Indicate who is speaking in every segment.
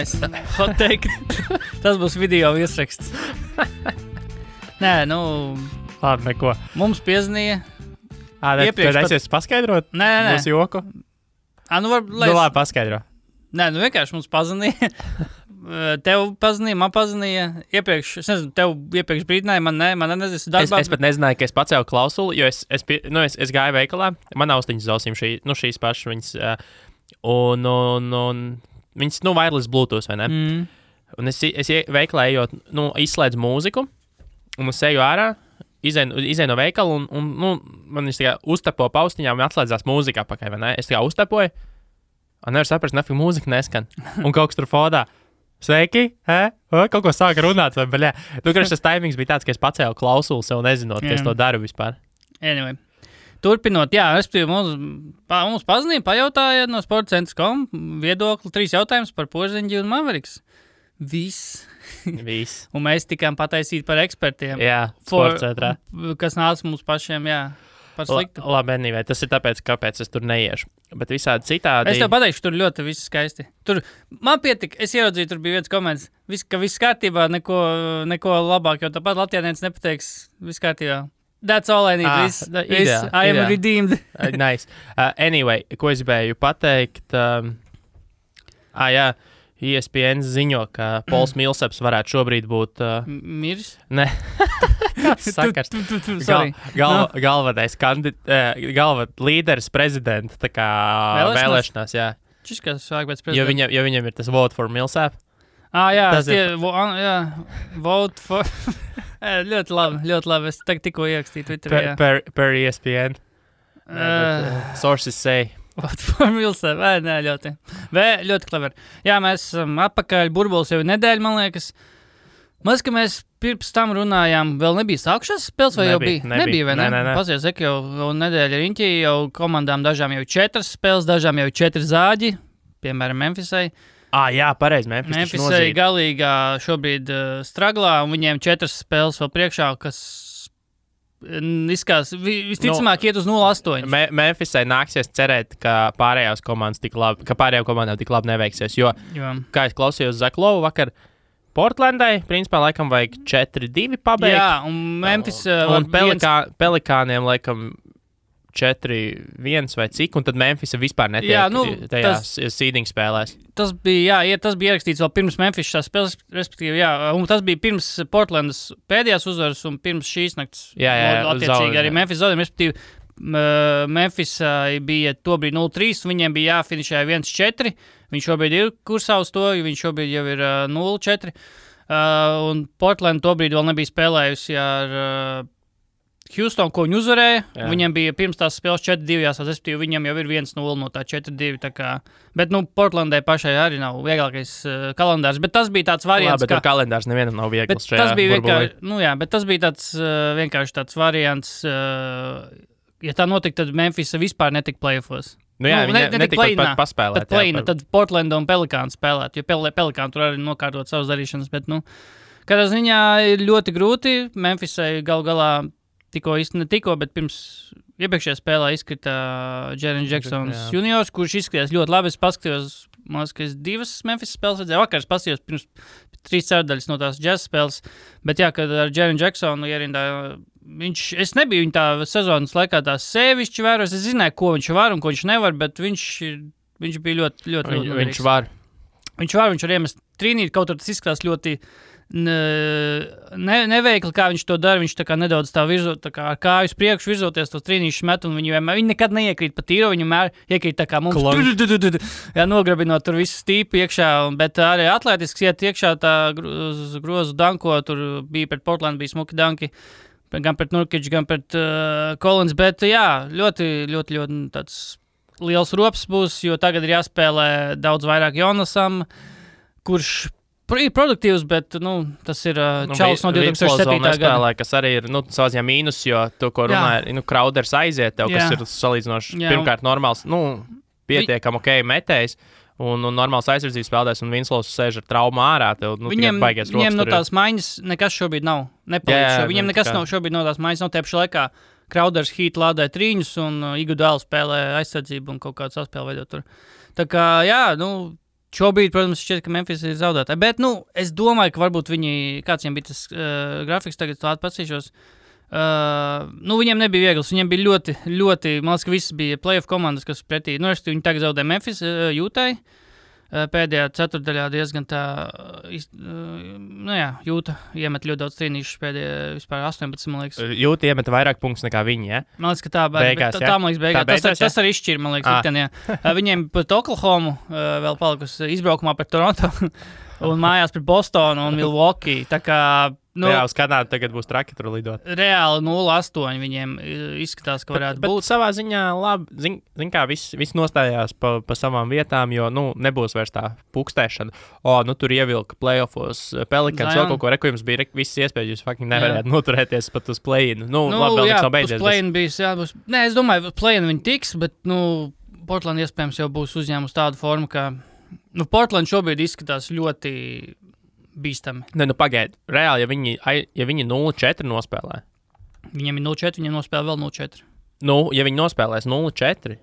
Speaker 1: Nice. Hot take. Tas būs video virsraksts. Nē,
Speaker 2: Labi, neko.
Speaker 1: Mums piezvanīja.
Speaker 2: Iepriekš tad es paskaidrot?
Speaker 1: Nē.
Speaker 2: Mūsu joku?
Speaker 1: Labi,
Speaker 2: paskaidro.
Speaker 1: Nē, vienkārši mums pazvanīja. Tev pazvanīja, man pazvanīja. Iepriekš, es nezinu, tev iepriekš brīdināja, man nezinu, darbā.
Speaker 2: Es pat nezināju, ka es pacēlu klausuli, jo es gāju veikalā. Man austiņas uz ausīm šīs pašas viņas. Un viņas, wireless Bluetooth, vai ne? Un es veikalā ejot, izslēdzu mūziku, un es eju ārā, izēju no veikala, un man viņš tā kā uztapo paustiņām un atslēdzās mūzika apakaļ, vai ne? Es tā kā uztapoju, un nevar saprast, nafik mūzika neskan. Un kaut kas tur fodā. Sveiki, kaut ko sāka runāt, vai baļā. Tas taimings bija tāds, ka es pacēlu klausuli sev nezinot, ka es to daru vispār.
Speaker 1: Anyway. Turpinot, mums pazvanīja, pajautāja no sportcentrs.com viedokli 3 jautājumus par Porziņģi un Mavericks. Viss. Un mēs tikām pataisīti par ekspertiem.
Speaker 2: Jā, sportcentrā.
Speaker 1: Kas nāca mums pašiem, par sliktu.
Speaker 2: Labi, anyway, tas ir tāpēc, kāpēc es tur neiešu. Bet visādi citādi...
Speaker 1: Es tev pateikšu, tur ļoti viss skaisti. Tur man pietika, es ieraudzīju, tur bija viens komentārs, ka viss kārtībā, neko labāk, jo tāpat Latvijānietis nepateiks, viss kārtībā. That's all I need. I am redeemed.
Speaker 2: Nice. Anyway, ko es gribēju pateikt? ESPN ziņo, ka Pols Millsaps varētu šobrīd būt...
Speaker 1: Miris?
Speaker 2: Ne. Kāds sakars? Galvenais līderis prezidenta tā kā vēlēšanās, jā.
Speaker 1: Šis kā sāk pēc prezidenta?
Speaker 2: Jo viņam ir tas vote for Millsap.
Speaker 1: Vote for... ļoti labi. Es tikko ierakstīju Twitterā.
Speaker 2: Per ESPN. Sources say...
Speaker 1: Vote for Millsap. Ļoti clever. Jā, mēs atpakaļ, burbulis jau nedēļa, man liekas. Ka mēs pirms tam runājām, vēl nebija sākušās spēles, vai jau bija? Nebija, vai ne?
Speaker 2: Nē.
Speaker 1: Pasies, jau nedēļa riņķī, jau komandām dažām jau 4 spēles, dažām jau 4 zāģi, piemēram, Memphisai.
Speaker 2: Jā, pareizi,
Speaker 1: Memphisai galīgā šobrīd straglā, un viņiem 4 spēles vēl priekšā, kas izskās, visticamāk iet uz 0-8.
Speaker 2: Memphisai nāksies cerēt, ka pārējām komandām tik labi neveiksies, jo, kā es klausījos Zaklovu vakar, Portlandai, principā, laikam vajag 4-2 pabeigt.
Speaker 1: Jā, un Memphis...
Speaker 2: un Pelikāniem, laikam, 4-1 vai cik, un tad Memphis vispār netiek tajās seeding spēlēs.
Speaker 1: Tas bija ierakstīts vēl pirms Memphis šās spēles, respektīvi, un tas bija pirms Portlandas pēdējās uzvaras un pirms šīs nakts. Attiecīgi arī Memphis zaudējumi, respektīvi, Memphis bija tobrīd 0-3, viņiem bija jāfinišē 1-4, viņš šobrīd ir kursā uz to, viņš šobrīd jau ir 0-4, un Portland tobrīd vēl nebija spēlējusi ar Houston, ko viņi uzvarēja, viņiem bija pirms tās spēles 4-2, respektīvi viņiem jau ir 1-0 no tā 4-2, tā kā, bet, Portlandai pašai arī nav vieglākais kalendārs, bet tas bija tāds variants,
Speaker 2: bet tur kalendārs nevienam nav viegls šajā
Speaker 1: burbulī. Bet tas bija tāds vienkārši tāds variants, ja tā notika, tad Memphis vispār netika playoffos.
Speaker 2: Netika pat paspēlēt.
Speaker 1: Tad Portlanda un Pelikāns spēlēt, jo Pelikāni tur arī nokārtot savas darīšanas, bet, kādā ziņā ir ļoti grūti. Memphisai galā bet pirms iepriekšējā spēlē izkrita Jaren Jacksons juniors, kurš izskatījās ļoti labi. Es paskatījos, man liekas, ka es 2 Memphis spēles redzēju. Vakar es paskatījos pirms 3 ceturdaļas no tās jazz spēles, bet kad ar Jaren Jacksonu ierindā, es nebiju viņa tā sezonas laikā tā sevišķi vēros, es zināju, ko viņš var un ko viņš nevar, bet viņš bija ļoti
Speaker 2: viņš var.
Speaker 1: Viņš var iemest trīnīt, kaut tur tas izskatās ļoti neveikli, kā viņš to dara, viņš tā kā nedaudz tā virzot, tā kā ar kāju uz priekšu virzoties tos trīnīšus met, un viņi nekad neiekrīt pa tīro, viņi iekrīt tā kā mums, nograbinot tur visu stīpu iekšā, bet arī atlētisks iet iekšā tā grozu danko, tur bija pret Portland, bija smuki danki, gan pret Nurkic, gan pret Collins, bet ļoti tāds liels rops būs, jo tagad ir jāspēlē daudz vairāk Jonasam, kurš ir produktīvs, bet, tas ir čalis no 2007.
Speaker 2: gada. Kas arī ir, savā ziņā mīnus, jo to, ko runāja, Crowders aiziet tev, kas ir salīdzinoši pirmkārt normāls, pietiekam metējs, un normāls aizsardzības spēlētājs, un Winslows sēž ar traumu ārā, tev, tikai baigies rokas.
Speaker 1: Viņiem no tās maiņas nekas šobrīd nav. Viņiem nekas nav šobrīd no tās maiņas, nav tēpši laikā. Crowders Heat lādē trīņus, un Iguodala spēlē aizsardzību un kaut kādu saspēli veidot tur. Tā kā, šobrīd, protams, šķiet, ka Memphis ir zaudētāji. Bet, es domāju, ka varbūt viņi, kāds viņiem bija tas grafiks, tagad tādu patsīšos, viņiem nebija viegls, viņiem bija ļoti, ļoti, man liekas, ka viss bija playoff komandas, kas pretī, viņi tagad zaudē Memphis, Jūtai. Pēdējā ceturtdaļā diezgan tā, Jūta iemet ļoti daudz trīnīšus pēdējā vispār 18, man liekas.
Speaker 2: Jūta iemet vairāk punktus nekā viņi, ja?
Speaker 1: Man liekas, ka tā man liekas beigās. Tas arī izšķir, man liekas, viņiem pret Oklahomu vēl palikusi izbraukumā pret Toronto un mājās pret Bostonu un Milwaukee. Tā kā,
Speaker 2: uz Kanādu tagad būs traki tur lidot.
Speaker 1: Reāli 0-8 viņiem izskatās, ka varētu būt.
Speaker 2: Bet savā ziņā labi, zin kā, viss nostājās pa savām vietām, jo, nebūs vairs tā pukstēšana. Tur ievilka playoffos Pelicans, vēl kaut ko reku, jums bija visas iespējas, jūs fucking nevarētu noturēties pat uz play-in. Labi, vēl nekas nav beidzies.
Speaker 1: Play-in bijis, būs. Nē, es domāju, play-in viņi tiks, bet, Portland iespējams jau būs uzņēmus tādu formu, ka, Portland šobrīd izskatās ļoti bīstami.
Speaker 2: Nē, pagaid. Reāli, ja viņi 0-4 nospēlē.
Speaker 1: Viņiem ir 0-4, viņiem nospēlē vēl 0-4.
Speaker 2: Ja viņi nospēlēs 0-4,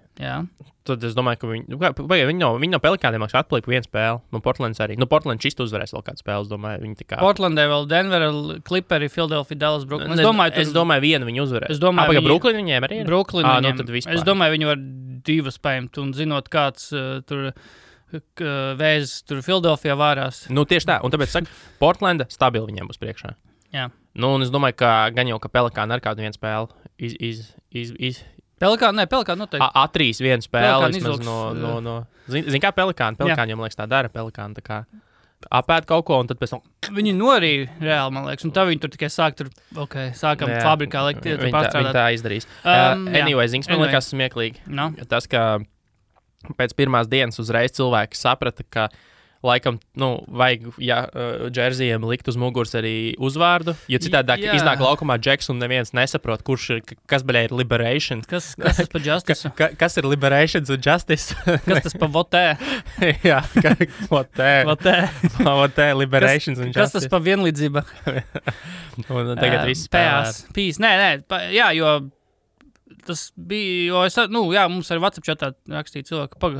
Speaker 2: tad es domāju, ka viņi no Pelikāniem atpalika vienu spēli. Portlands arī. Portlands šist uzvarēs vēl kādu spēli, es domāju.
Speaker 1: Portlandē vēl Denver, Clipperi, Philadelphia, Dallas, Brooklyn.
Speaker 2: Es domāju, vienu viņi uzvarēs.
Speaker 1: Es domāju,
Speaker 2: Brooklyn viņiem arī ir?
Speaker 1: Brooklyn viņiem.
Speaker 2: Tad vispār.
Speaker 1: Es domāju, viņi var divas paņemt un zinot, kāds tur vēzis tur Philadelphia vārās.
Speaker 2: Tieši tā. Un tāpēc saka, Portlanda stabili viņiem būs priekšā.
Speaker 1: Jā.
Speaker 2: Un es domāju, ka gan jau, ka Pelikāni ar kādu vienu spēli
Speaker 1: Pelikāni noteikti.
Speaker 2: Atrīs vienu spēli vismaz no Zin kā Pelikāni? Pelikāni jau, man liekas, tā dara. Pelikāni tā kā apēd kaut ko, un tad pēc tam...
Speaker 1: Viņi norīja reāli, man liekas, un tā viņi tur tikai sākam fabrikā likt pārstrādāt.
Speaker 2: Viņi tā izdarīs. Zins, man liekas smieklīgi. Tas, ka pēc pirmās dienas uzreiz cilvēki saprata, ka laikam, vajag, džerzijiem likt uz muguras arī uzvārdu, jo citādi iznāk laukumā Džeks un neviens nesaprot, kurš ir, kas ir Liberation.
Speaker 1: Kas tas pa Justice?
Speaker 2: Kas ir Liberation un Justice?
Speaker 1: Kas tas pa Votē?
Speaker 2: Jā, Votē, Liberation un Justice.
Speaker 1: Kas tas pa vienlīdzība?
Speaker 2: Un tagad viss spēlē.
Speaker 1: Pīs, nē, jo tas bija, mums arī WhatsApp chatā rakstīja cilvēku,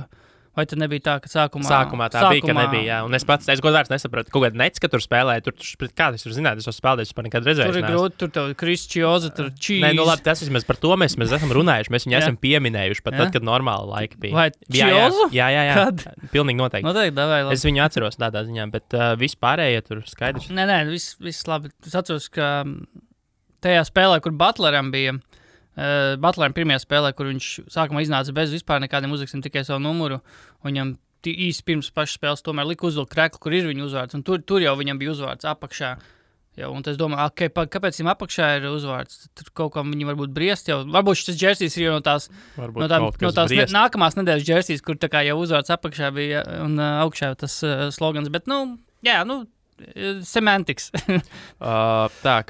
Speaker 1: vai tad nebija tā, ka sākumā
Speaker 2: bija, ka nebija, jā. Un es godvārds nesapratu, kaut kāda nec, ka tur spēlēja, kā tas var zināt, es esmu spēlējis, par nekad redzēju.
Speaker 1: Tur ir grūti, tur tev Krišķioza, tur čīs.
Speaker 2: Nē, labi, tas vismaz par to mēs esam runājuši, mēs viņu esam pieminējuši pat tad, kad normāli laika bija.
Speaker 1: Vai Čiozu?
Speaker 2: Jā.
Speaker 1: Kad?
Speaker 2: Pilnīgi noteikti.
Speaker 1: Davai, labi.
Speaker 2: Es viņu atceros tādā ziņā, bet vispārējie tur skaidrs.
Speaker 1: Nē, viss labi. Es atceros, ka tajā spēlē, kur Butleram bija, Butleram pirmajā spēlē, kur viņš sākumā iznāca bez vispār nekādiem uzrakstiem, tikai savu numuru, un viņam īsti pirms pašas spēles tomēr lika uzvilkt kreklu, kur ir viņa uzvārds, un tur jau viņam bija uzvārds apakšā. Jau, un es domāju, kāpēc viņam apakšā ir uzvārds? Tur kaut kā viņi varbūt briest jau. Varbūt šis džersijs ir jau no tās nākamās nedēļas džersijs, kur tā kā jau uzvārds apakšā bija un augšā tas slogans, bet, semantics.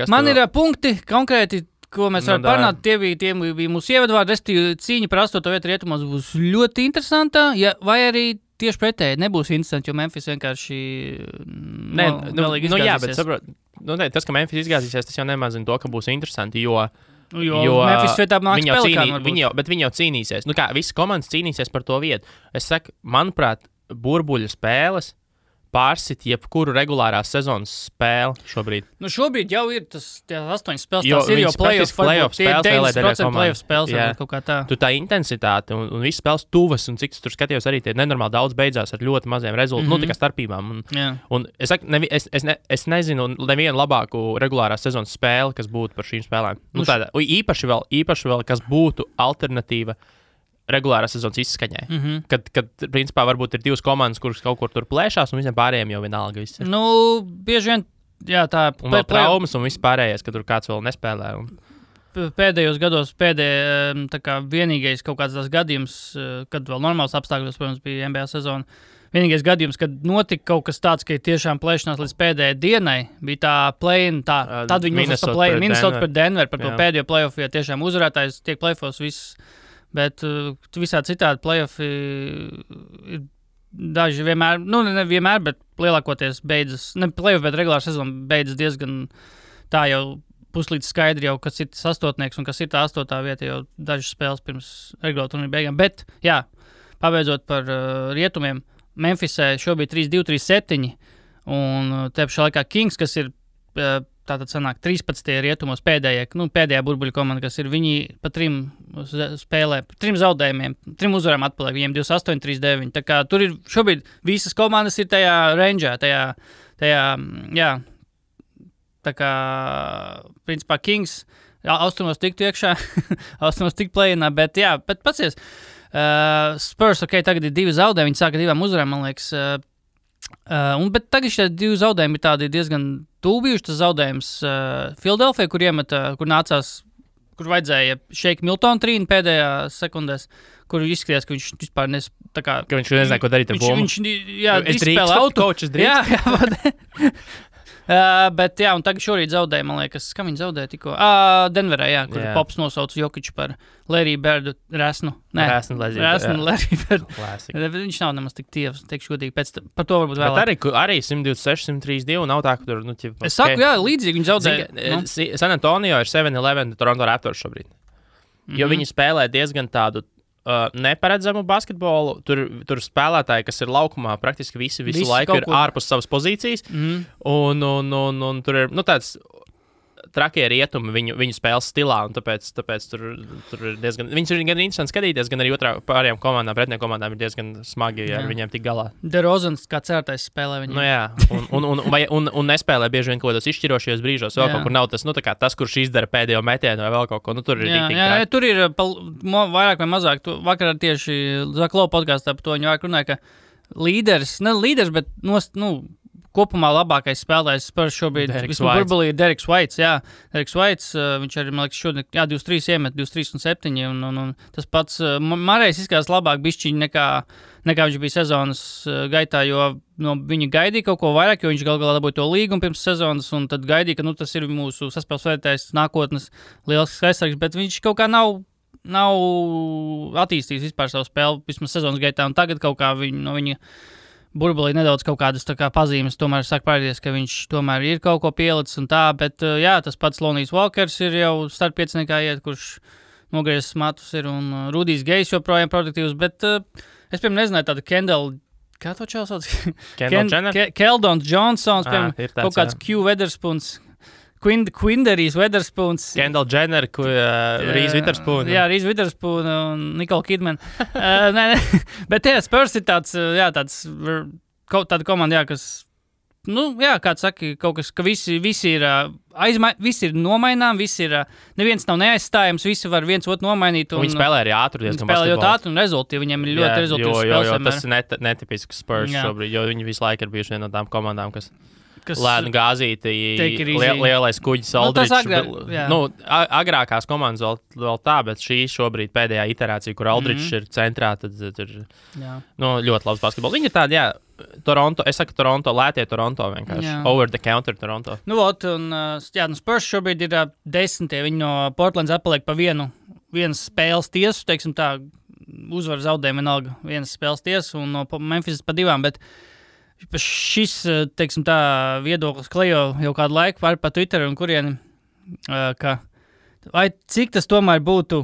Speaker 1: Man ir punkti konkrēti, ko mēs varam parunāt, tie bija mūsu ievadvārdi, restīvi cīņa par 8. vietu rietumos būs ļoti interesanta, vai arī tieši pretēji nebūs interesanti, jo Memphis vienkārši galīgi izgāzīsies.
Speaker 2: Jā, bet saprot, tas, ka Memphis izgāzīsies, tas jau nemazina to, ka būs interesanti, jo
Speaker 1: Memphis vietā nāks Pelikāni varbūt.
Speaker 2: Bet viņi jau cīnīsies. Visas komandas cīnīsies par to vietu. Es saku, manuprāt, burbuļu spēles pārsit jebkuru regulārās sezonas spēli šobrīd.
Speaker 1: Šobrīd jau ir tas 8 spēles, tās ir jau playoff spēles, 90% playoff spēles, kaut kā tā.
Speaker 2: Tu tā intensitāte un viss spēles tuvas, un cik tur skatījos arī tie nenormāli daudz beidzās ar ļoti maziem rezultātiem, tā kā starpībām. Un es saku, es nezinu nevienu labāku regulārās sezonas spēli, kas būtu par šīm spēlēm. Īpaši vēl, kas būtu alternatīva regulārās sezonas izskaņai. Kad, principā, varbūt ir divas komandas, kuras kaut kur tur plēšās, un visiem pārējiem jau vienalga viss ir.
Speaker 1: Bieži vien, tā...
Speaker 2: Un vēl traumas un viss pārējais, ka tur kāds vēl nespēlē.
Speaker 1: Pēdējos gados, vienīgais kaut kāds tās gadījums, kad vēl normāls apstākļos, protams, bija NBA sezona, vienīgais gadījums, kad notika kaut kas tāds, ka tiešām plēšanās līdz pēdējai dienai, bija tā play-in, tad viņi uzvars pa play-in, Minnesota pret Denver, par to pēdējo play-off, ja tiešām uzvarētājs tiek play-offos viss. Bet visā citādi play-offi ir daži vienmēr, nevienmēr, bet lielākoties beidzas, ne play-off, bet regulāra sezona beidzas diezgan tā jau puslīdz skaidri jau, kas ir tas astotnieks un kas ir tā 8. vieta jau dažas spēles pirms regulāra turnīra beigām. Bet, pabeidzot par rietumiem, Memphisē šobrīd 3-2, 3-7, un te pašā laikā Kings, kas ir tātad sanāk 13. rietumos pēdējā burbuļu komanda, kas ir viņi pa 3 spēlē, 3 zaudējumiem, 3 uzvarām atpaliek, viņiem 28, 39. Tā kā tur ir šobrīd visas komandas ir tajā rangeā, tajā, jā, tā kā, principā Kings austrumos tiktu iekšā, austrumos tiktu play-inā, bet jā, bet pacies, Spurs, tagad ir 2 zaudējumi, viņi sāka 2 uzvarām, man liekas, bet tagad šie 2 zaudējumi ir tādi diezgan tūbijuši. Tas zaudējums Philadelphia, kur nācās, kur vajadzēja Shake Milton trīnu pēdējā sekundēs, kur izskatījās, ka viņš vispār
Speaker 2: ka viņš nezināja, ko darīt ar bumbu.
Speaker 1: Viņš izspēlē auto. Jā, bet jā, un tagad šorīt zaudēja, man liekas, kam viņi zaudēja tikko? Denverā, jā, kur Pops nosauca Jokiču par Larry Birdu resnu.
Speaker 2: Resnu
Speaker 1: Larry Birdu. Viņš nav nemaz tik tievs, teikšu godīgi, par to varbūt vēlāk.
Speaker 2: Bet arī 126, 132 nav tā, ka tur,
Speaker 1: Es saku, jā, līdzīgi viņi zaudēja.
Speaker 2: San Antonio ir 7-11 Toronto Raptors šobrīd. Jo viņi spēlē diezgan tādu neparedzamu basketbolu. Tur spēlētāji, kas ir laukumā, praktiski visu laiku ir ārpus savas pozīcijas. Un tur ir tāds trakie rietumi viņu spēles stilā, un tāpēc tur ir diezgan... Viņus ir gan interesanti skatīties, gan arī pārējām komandām, pretiniekām komandām ir diezgan smagi ar viņiem tik galā.
Speaker 1: DeRozans kā certais spēlē viņiem.
Speaker 2: Nu jā, un nespēlē bieži vien kaut kādos izšķirošajos brīžos, vēl kaut kur nav tas, tas, kurš izdara pēdējo metienu vai vēl kaut ko. Tur ir
Speaker 1: jā, tur ir vairāk vai mazāk. Vakar tieši Zaklo podkāstā par to viņi vairāk runāja, ka līderis, bet kopumā labākais spēlētājs Spurs šobrīd burbulī ir Deriks Whites. Jā, Deriks Whites, viņš arī, man liekas, šodien 23 iemet, 23 un 7. Un tas pats Marejs izskatās labāk bišķiņi nekā viņš bija sezonas gaitā, jo viņi gaidīja kaut ko vairāk, jo viņš galā dabūja to līgumu pirms sezonas, un tad gaidīja, ka tas ir mūsu saspēles vērtējs nākotnes liels aizsargs, bet viņš kaut kā nav attīstījis vispār savu spēli vismaz sezonas gaitā, un tagad kaut kā viņa burbulī nedaudz kaut kādas pazīmes tomēr sāk parādīties, ka viņš tomēr ir kaut ko pielicis un tā, bet jā, tas pats Lonijs Walkers ir jau startpieciniekā iet, kurš nogriezis matus ir, un Rudijs Gejs joprojām produktīvs, bet es, piemēram, nezināju tādu Kendall, kā to čau sauc?
Speaker 2: Kendall Jenner?
Speaker 1: Keldons Johnsons, piemēram, kaut kāds Q Weatherspoons, Quinderijs Weatherspoons.
Speaker 2: Kendall Jenner, Reese Witherspoon.
Speaker 1: Jā, Reese Witherspoon un Nicole Kidman. Bet jā, Spurs ir tāda komanda, kas, kāds saka, kaut kas, ka visi ir visi ir nomainām, neviens nav neaizstājams, visi var viens otru nomainīt.
Speaker 2: Viņi spēlē arī ātri diezgan basketbolu.
Speaker 1: Viņi spēlē ļoti ātri un rezultīvi, viņiem ir ļoti rezultīvs spēles.
Speaker 2: Jo tas ir netipisks Spurs šobrīd, jo viņi visu laiku ir bijuši viena no tām komandām, kas lēnu gāzīti, lielais kuģis Aldričs. Agrākās komandas vēl tā, bet šī šobrīd pēdējā iterācija, kur Aldričs ir centrā, tad ir ļoti labs basketbols. Viņi ir tādi, Toronto, es saku Toronto, lētie Toronto vienkārši. Over the counter Toronto.
Speaker 1: Spurs šobrīd ir 10. Viņi no Portlands atpaliek pa vienas spēles tiesu, teiksim tā, uzvar zaudējumu vienalga vienas spēles tiesu, un no Memphis pa 2, bet šis, teiksim tā, viedoklis klejo jau kādu laiku pa Twitter un kurieni, ka vai cik tas tomēr būtu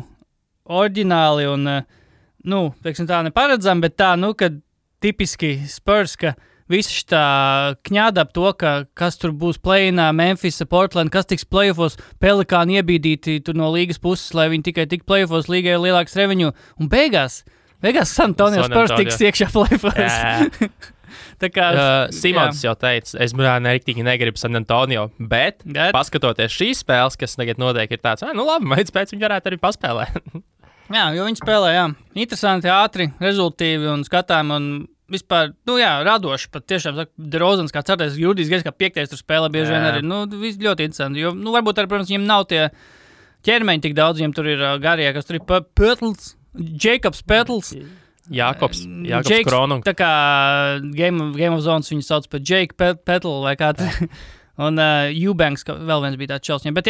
Speaker 1: oriģināli un, teiksim tā, neparedzami, bet tā, kad tipiski Spurs, ka visi šitā kņāda ap to, ka kas tur būs play-inā, Memphis, Portland, kas tiks play-offos, Pelikāni iebīdīti tur no līgas puses, lai viņi tikai tik play-offos, līgai ir lielāks revenue, un beigās San Antonio Spurs tiks iekšā play-offos.
Speaker 2: Simons jau teica, es nektīgi negribu San Antonio, bet paskatoties šīs spēles, kas tagad notiek, ir tāds, labi, mēdz pēc viņi varētu arī paspēlēt.
Speaker 1: Jā, jo viņi spēlē, interesanti, ātri, rezultīvi un skatām, un vispār, radoši, pat tiešām, DeRozans kā certais, Rudijs Gejs kā 5. tur spēlē bieži vien arī, ļoti interesanti, jo, varbūt arī, protams, viņiem nav tie ķermeņi tik daudz, viņiem tur ir garie, kas tur ir Pötls, Jacobs Pötls,
Speaker 2: Jakobs Kronung.
Speaker 1: Tā kā Game of Zones viņu sauc par Jake Petl vai kā tā. Un Eubanks, vēl viens bija tāds čels. Bet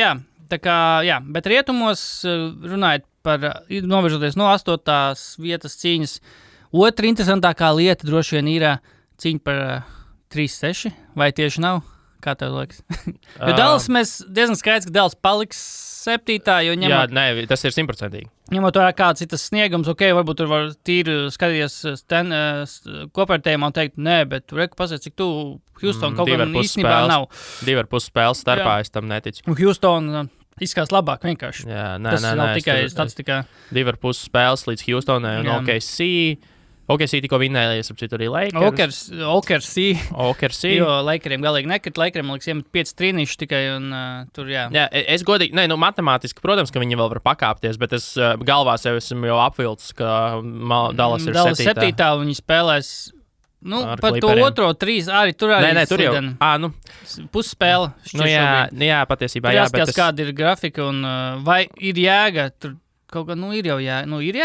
Speaker 1: bet rietumos runājot par, novirzoties no 8. vietas cīņas, otra interesantākā lieta droši vien ir cīņa par 3-6, vai tieši nav? Kā tev liekas? Jo Dallas mēs diezgan skaidrs, ka Dallas paliks 7. Jo ņemot...
Speaker 2: Jā, nē, tas ir 100%.
Speaker 1: Ņemot vērā kāds ir tas sniegums, varbūt tur var tīri skatīties kopērtējumā un teikt, nē, bet tu reku pasies, cik tu Houston kaut kā īstenībā nav.
Speaker 2: 2,5 spēles starpā, es tam neticu.
Speaker 1: Un Houston izskatās labāk vienkārši.
Speaker 2: Jā,
Speaker 1: tas nav tikai statistikā.
Speaker 2: 2,5 spēles līdz Houstonai un OKC. OKC tikko vinnēja, ap citu arī Lakers.
Speaker 1: OKC. Jo Lakeriem galīgi nekrit. Lakeriem, man liekas, iemet 5 trīnīši tikai un tur, jā.
Speaker 2: Jā, es godīgi, matemātiski, protams, ka viņi vēl var pakāpties, bet es galvā sev esmu jau apvilcis, ka Dallas ir 7.
Speaker 1: Dallas 7. un viņi spēlēs, par to otro 3 arī tur arī.
Speaker 2: Nē, tur jau,
Speaker 1: pusspēle.
Speaker 2: Jā, patiesībā, jā.
Speaker 1: Bet kāda ir grafika un vai ir jēga tur? Kaut kā, ir jau ir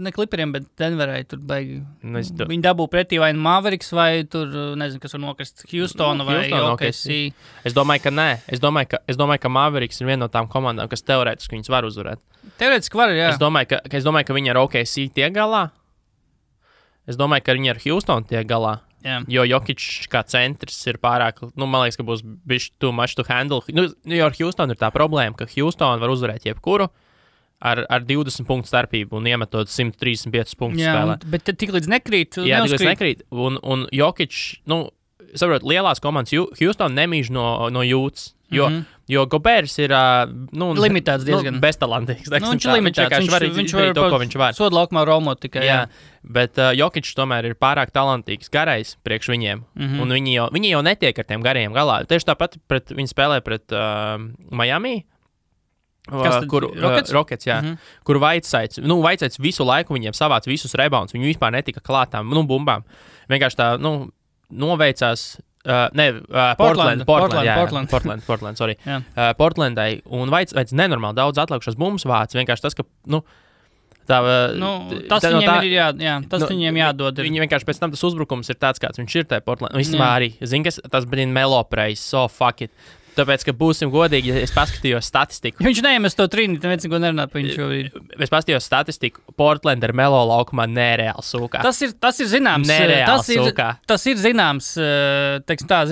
Speaker 1: ne Clipperiem, bet Denverai tur baigi. Viņi dabū pretī vai Mavericks vai tur, nezinu, kas var nokrist Houstonu vai OKC.
Speaker 2: Es domāju, ka nē. Es domāju, ka Mavericks ir viena no tām komandām, kas teorētiski viņus var uzvarēt.
Speaker 1: Teorētiski var, jā.
Speaker 2: Es domāju, ka viņi ar OKC tiek galā. Es domāju, ka viņi ar Houstonu tiek galā.
Speaker 1: Jā.
Speaker 2: Jo Jokic kā centrs ir pārāk, man liekas, ka būs bišķi too much to handle. Jo ar Houstonu ir tā problēma, ka Houstonu var uzvarēt jebkuru. Ar 20 punktu starpību un iemetot 135 punktu spēlē.
Speaker 1: Bet tik līdz nekrīt.
Speaker 2: Jā, tik līdz nekrīt. Un Jokic, saprot, lielās komandas Houston nemīž no jūtas. Jo Gobers ir
Speaker 1: limitēts diezgan.
Speaker 2: Beztalantīgs.
Speaker 1: Viņš ir limitēts. Viņš var
Speaker 2: to, ko viņš var.
Speaker 1: Sodu laukumā romot tikai.
Speaker 2: Jā. Bet Jokic tomēr ir pārāk talantīgs, garais priekš viņiem. Un viņi jau netiek ar tiem garajiem galā. Tieši tāpat viņi spēlē pret Miami. Kur Rockets, jā. Kur Vaitsaits visu laiku viņiem savāc visus rebounds. Viņi vispār netika klātām, bumbām. Vienkārši tā, noveicās. Portland, sorry. Portlandai. Un Vaits nenormāli daudz atlikušas bumbas vāc. Vienkārši tas, ka,
Speaker 1: tas viņiem jādod.
Speaker 2: Viņi vienkārši pēc tam tas uzbrukums ir tāds, kāds viņš ir tajā Portlandā. Vispār arī, tas bija Melo praise, so fuck it. Tāpēc, ka būsim godīgi, ja es paskatījos statistiku.
Speaker 1: Viņš neiemes to trīnīt, neviens neko nerunā par viņu šobrīd.
Speaker 2: Es paskatījos statistiku, Portland ar Melo laukumā nereāli sūkā.
Speaker 1: Tas ir zināms. Tas ir zināms,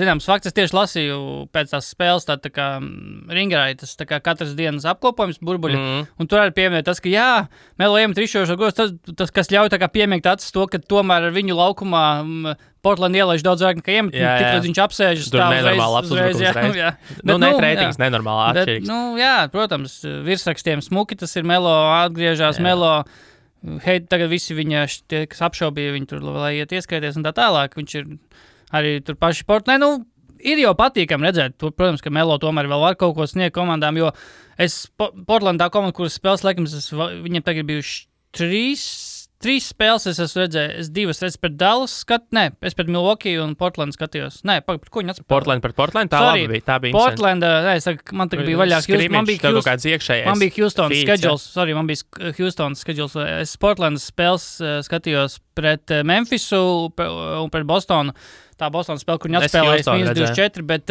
Speaker 1: zināms fakts. Es tieši lasīju pēc tās spēles, tā kā ringrāja, tas tā kā katras dienas apkopojums burbuļi. Un tur arī pieminēja tas, ka jā, Melo iemet rišošo gos, tas, kas ļauj tā kā piemiegt acis to, ka tomēr ar viņu laukumā Portland ielaiž daudz vairāk nekā iemet, tik līdz viņš apsēžas
Speaker 2: tā uzreiz. Reitings nenormāli atšķirīgs.
Speaker 1: Jā, protams, virsrakstiem smuki, tas ir Melo, atgriežās Melo, tagad visi viņa, tie, kas apšaubīja viņu tur, lai iet ieskaities un tā tālāk, viņš ir arī tur paši Portland, ir jau patīkami redzēt, protams, ka Melo tomēr vēl var kaut ko sniegt komandām, jo Portland tā komanda, kuras spēles laikams, viņiem tagad bijuši 3 spēles es esmu redzējis. Es 2 redzu pret Dallas es pret Milwaukee un Portland skatījos. Nē, par ko viņi atspēlēja?
Speaker 2: Portland pret Portland? Tā bija
Speaker 1: Portland, man tagad bija vaļā. Man bija Houston schedules. Man bija Houston schedules. Es Portlandas spēles skatījos pret Memphisu un pret Bostonu. Tā Bostonas spēle, kur viņi atspēlējas -24, bet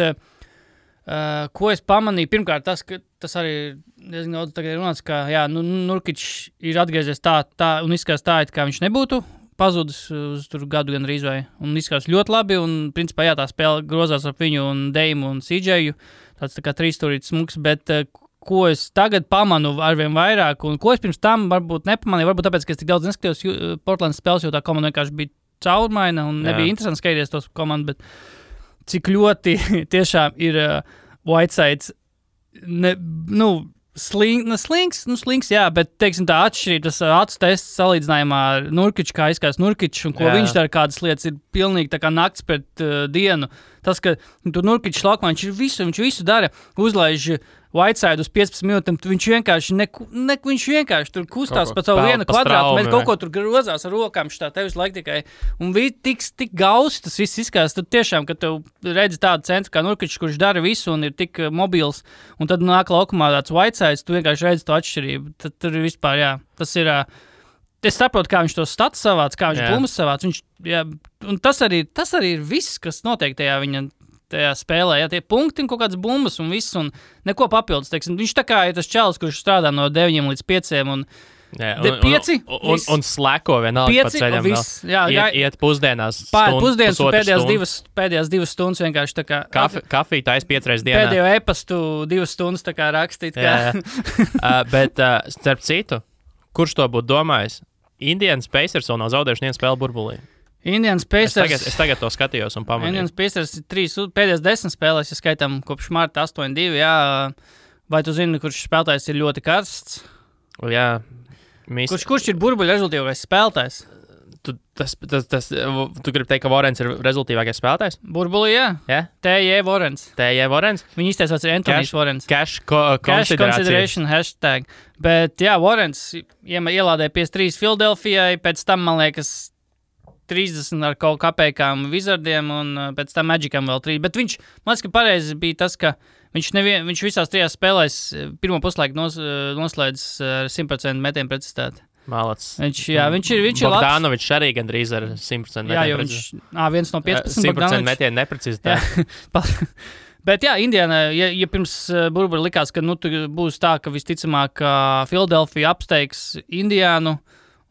Speaker 1: ko es pamanīju? Pirmkārt, tas arī diezgan daudz tagad runāts, ka Nurkic ir atgriezies tā un izskatās tā, kā viņš nebūtu pazudis uz tur gadu gan rīz vai. Un izskatās ļoti labi un principā tā spēle grozās ap viņu un Deimu un CJ'u. Tāds tā kā trīsstūrīts smuks, bet ko es tagad pamanu arvien vairāk un ko es pirms tam varbūt nepamanīju, varbūt tāpēc, ka es tik daudz neskatījos Portlandas spēles, jo tā komanda vienkārši bija caurmaina un nebija interesanti skatīties tos komandu, bet cik ļoti tiešām ir Whitesides slings, jā, bet, teiksim, tā atšķirība, tas acu tests salīdzinājumā ar Nurkiču, kā izskatās Nurkičs, un ko viņš dara, kādas lietas ir pilnīgi tā kā nakts pret dienu. Tas, ka tur Nurkičs laukumā, viņš visu dara, uzlaiž Whiteside uz 15 minūtēm, viņš vienkārši tur kustās pa savu vienu kvadrātu, mēs kaut ko tur grozās ar rokām, šitā tevis laik tikai, un tik gausi tas viss izskatās, tad tiešām, kad tev redzi tādu centru kā Nurkičs, kurš dara visu un ir tik mobils, un tad nāk laukumā tāds Whitesides, tu vienkārši redzi to atšķirību, tad tur ir vispār, jā, tas ir, es saprotu, kā viņš to stats savāc, kā viņš bumbas savāc, un tas arī ir viss, kas notiek tajā spēlē, tie punkti un kaut kādas bumbas un viss, un neko papildus, teiksim. Viņš tā kā ir tas čalis, kurš strādā no 9 līdz 5, un 5.
Speaker 2: Un slēko vienalga pa ceļam. Iet pusdienās.
Speaker 1: Pusdienas un pēdējās 2 stundas vienkārši tā kā...
Speaker 2: Kafiju tais 5 reizes dienā.
Speaker 1: Pēdējo e-pastu 2 stundas tā kā rakstīt.
Speaker 2: Bet, starp citu, kurš to būtu domājis? Indians Pacers vēl nav zaudējuši nevienu spēli burbulī.
Speaker 1: Indians Pacers...
Speaker 2: Es tagad to skatījos un pamanīju.
Speaker 1: Indians Pacers ir 3 pēdējās 10 spēlēs, ja skaitām kopš marta 8-2, jā. Vai tu zini, kurš spēlētājs ir ļoti karsts?
Speaker 2: Jā.
Speaker 1: Kurš ir burbuļu rezultīvākais spēlētājs?
Speaker 2: Tu gribi teikt, ka Vorens ir rezultīvākais spēlētājs?
Speaker 1: Burbulī, jā.
Speaker 2: Yeah?
Speaker 1: T.J. Vorens. Viņa izteicās ir Antonijs Vorens.
Speaker 2: Cash
Speaker 1: consideration hashtag. Bet, jā, Vorens ielādēja 53 Filadelfijai, pēc tam, man liekas, 30 ar kaut kāpēkām Wizardiem un pēc tam Magicam vēl 3. Bet viņš, man liekas, ka pareizi bija tas, ka viņš visās 3 spēlēs pirmo puslaiku noslēdz ar 100% metienu precizitāti.
Speaker 2: Malacis.
Speaker 1: Viņš ir labs.
Speaker 2: Bogdanovičs arī gandrīz ar 100% metienu precizitāti.
Speaker 1: Jā, viens no 15
Speaker 2: 100% metienu neprecizitāti.
Speaker 1: Bet jā, Indiana, ja pirms burbuļa likās, ka tu būs tā, ka visticamāk Filadelfija apsteigs Indiānu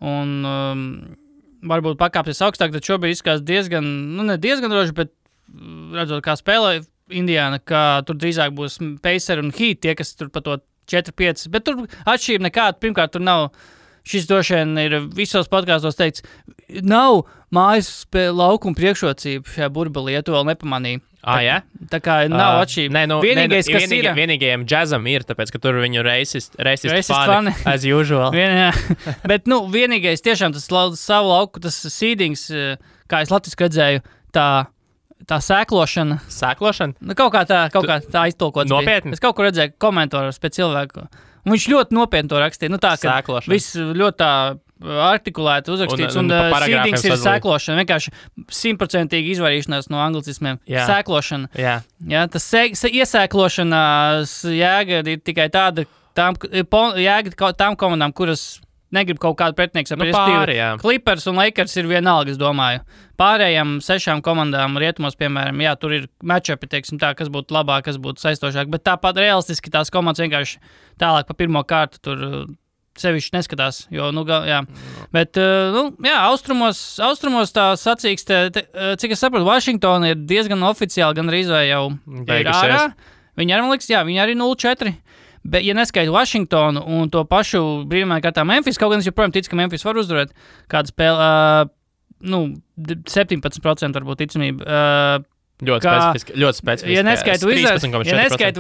Speaker 1: un varbūt pakāpsies augstāk, tad šobrīd izskatās diezgan, ne diezgan droši, bet redzot, kā spēlē Indiana, ka tur drīzāk būs Pacers un Heat, tie, kas tur pa to 4-5, bet tur atšķirība nekāda. Pirmkārt, tur nav, šis droši vien ir visos podkāstos teikts, nav mājas laukuma priekšrocība šajā burbulī, ja tu vēl nepamanīji.
Speaker 2: Jā?
Speaker 1: Tā kā nav atšķirība.
Speaker 2: Vienīgajiem džazam ir, tāpēc, ka tur viņu racist fani, as usual.
Speaker 1: Bet, vienīgais tiešām tas savu lauku, tas seedings, kā es latviski redzēju, tā sēklošana.
Speaker 2: Sēklošana?
Speaker 1: Kaut kā tā aiztulkots.
Speaker 2: Nopietni?
Speaker 1: Es kaut kur redzēju komentārus pēc cilvēku. Un viņš ļoti nopietni to rakstīja. Tā, ka viss ļoti tā artikulēti uzrakstīts, un seedings ir sēklošana. Vienkārši 100% izvairīšanās no anglicismiem. Sēklošana. Jā, tas iesēklošanās jēga ir tikai tāda, tām komandām, kuras negrib kaut kādu pretinieku. Clippers un Lakers ir vienalga, es domāju. Pārējām 6 komandām rietumos, piemēram, jā, tur ir matchupi, teiksim tā, kas būtu labāk, kas būtu saistošāk, bet tāpat realistiski tās komandas vienkārši tālāk pa pirmo kārtu tur sevišķi neskatās, jo, jā. Bet, jā, austrumos tā sacīkste, cik es saprotu, Vašingtona ir diezgan oficiāli, gan arī jau ir ārā. Viņi arī, man liekas, jā, viņi arī 0-4. Bet, ja neskaitu Vašingtonu un to pašu brīvajā kārtā Memphis, kaut gan es joprojām ticu, ka Memphis var uzvarēt kādu spēli, 17% varbūt ticamība.
Speaker 2: Ļoti specifiski.
Speaker 1: Ja neskaitu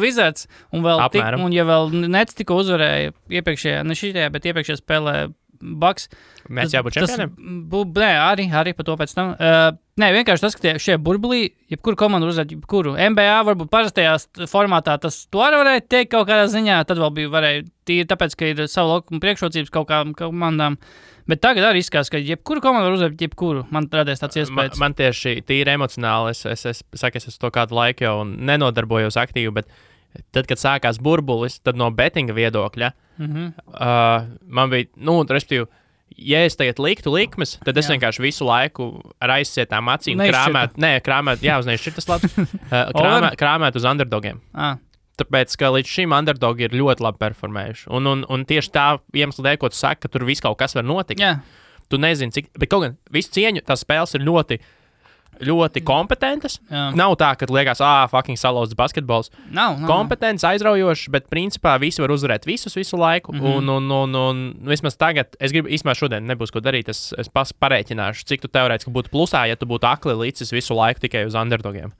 Speaker 1: Wizards un vēl un ja vēl Nets tikko uzvarēja iepriekšējā, ne šitajā, bet iepriekšējā spēlē Bucks.
Speaker 2: Mēs jābūt čempioniem?
Speaker 1: Nē, arī par to pēc tam. Nē, vienkārši tas, ka šie burbulī, jebkuru komandu uzvarēt, jebkuru. NBA varbūt parastajā formātā tas to arī varēja teikt kaut kādā ziņā, tad vēl varēja tīri tāpēc, ka ir savu laukumu priekšrocības kaut kādām komandām. Bet tagad arī izskatās, ka jebkuru komandu var uzvarēt, jebkuru. Man radies tāds iespējas.
Speaker 2: Man tieši tīri emocionāli, es esmu to kādu laiku jau nenodarbojos aktīvi, bet tad, kad sākās burbulis, tad no betinga viedokļa, man bija, respektīvi, ja es tagad liktu likmes, tad es vienkārši visu laiku ar aizsietām acīm krāmēt, jāuznieš šitas labs, krāmēt uz underdogiem. Tāpēc, ka līdz šim underdogi ir ļoti labi performējuši. Un tieši tā iemesla dēļ, ko tu saki, ka tur viss kaut kas var notikt. Tu nezini, cik, bet kaut gan visu cieņu, tās spēles ir ļoti, ļoti kompetentas. Nav tā, ka liekas, fucking salauzts basketbols.
Speaker 1: Nav.
Speaker 2: Kompetents, aizraujošs, bet principā visi var uzvarēt visu laiku. Un vismaz tagad, es gribu, īstenībā šodien nebūs ko darīt, es pareiķināšu, cik tu teorētiski būtu plusā, ja tu būtu akli līdzis visu laiku tikai uz underdogiem.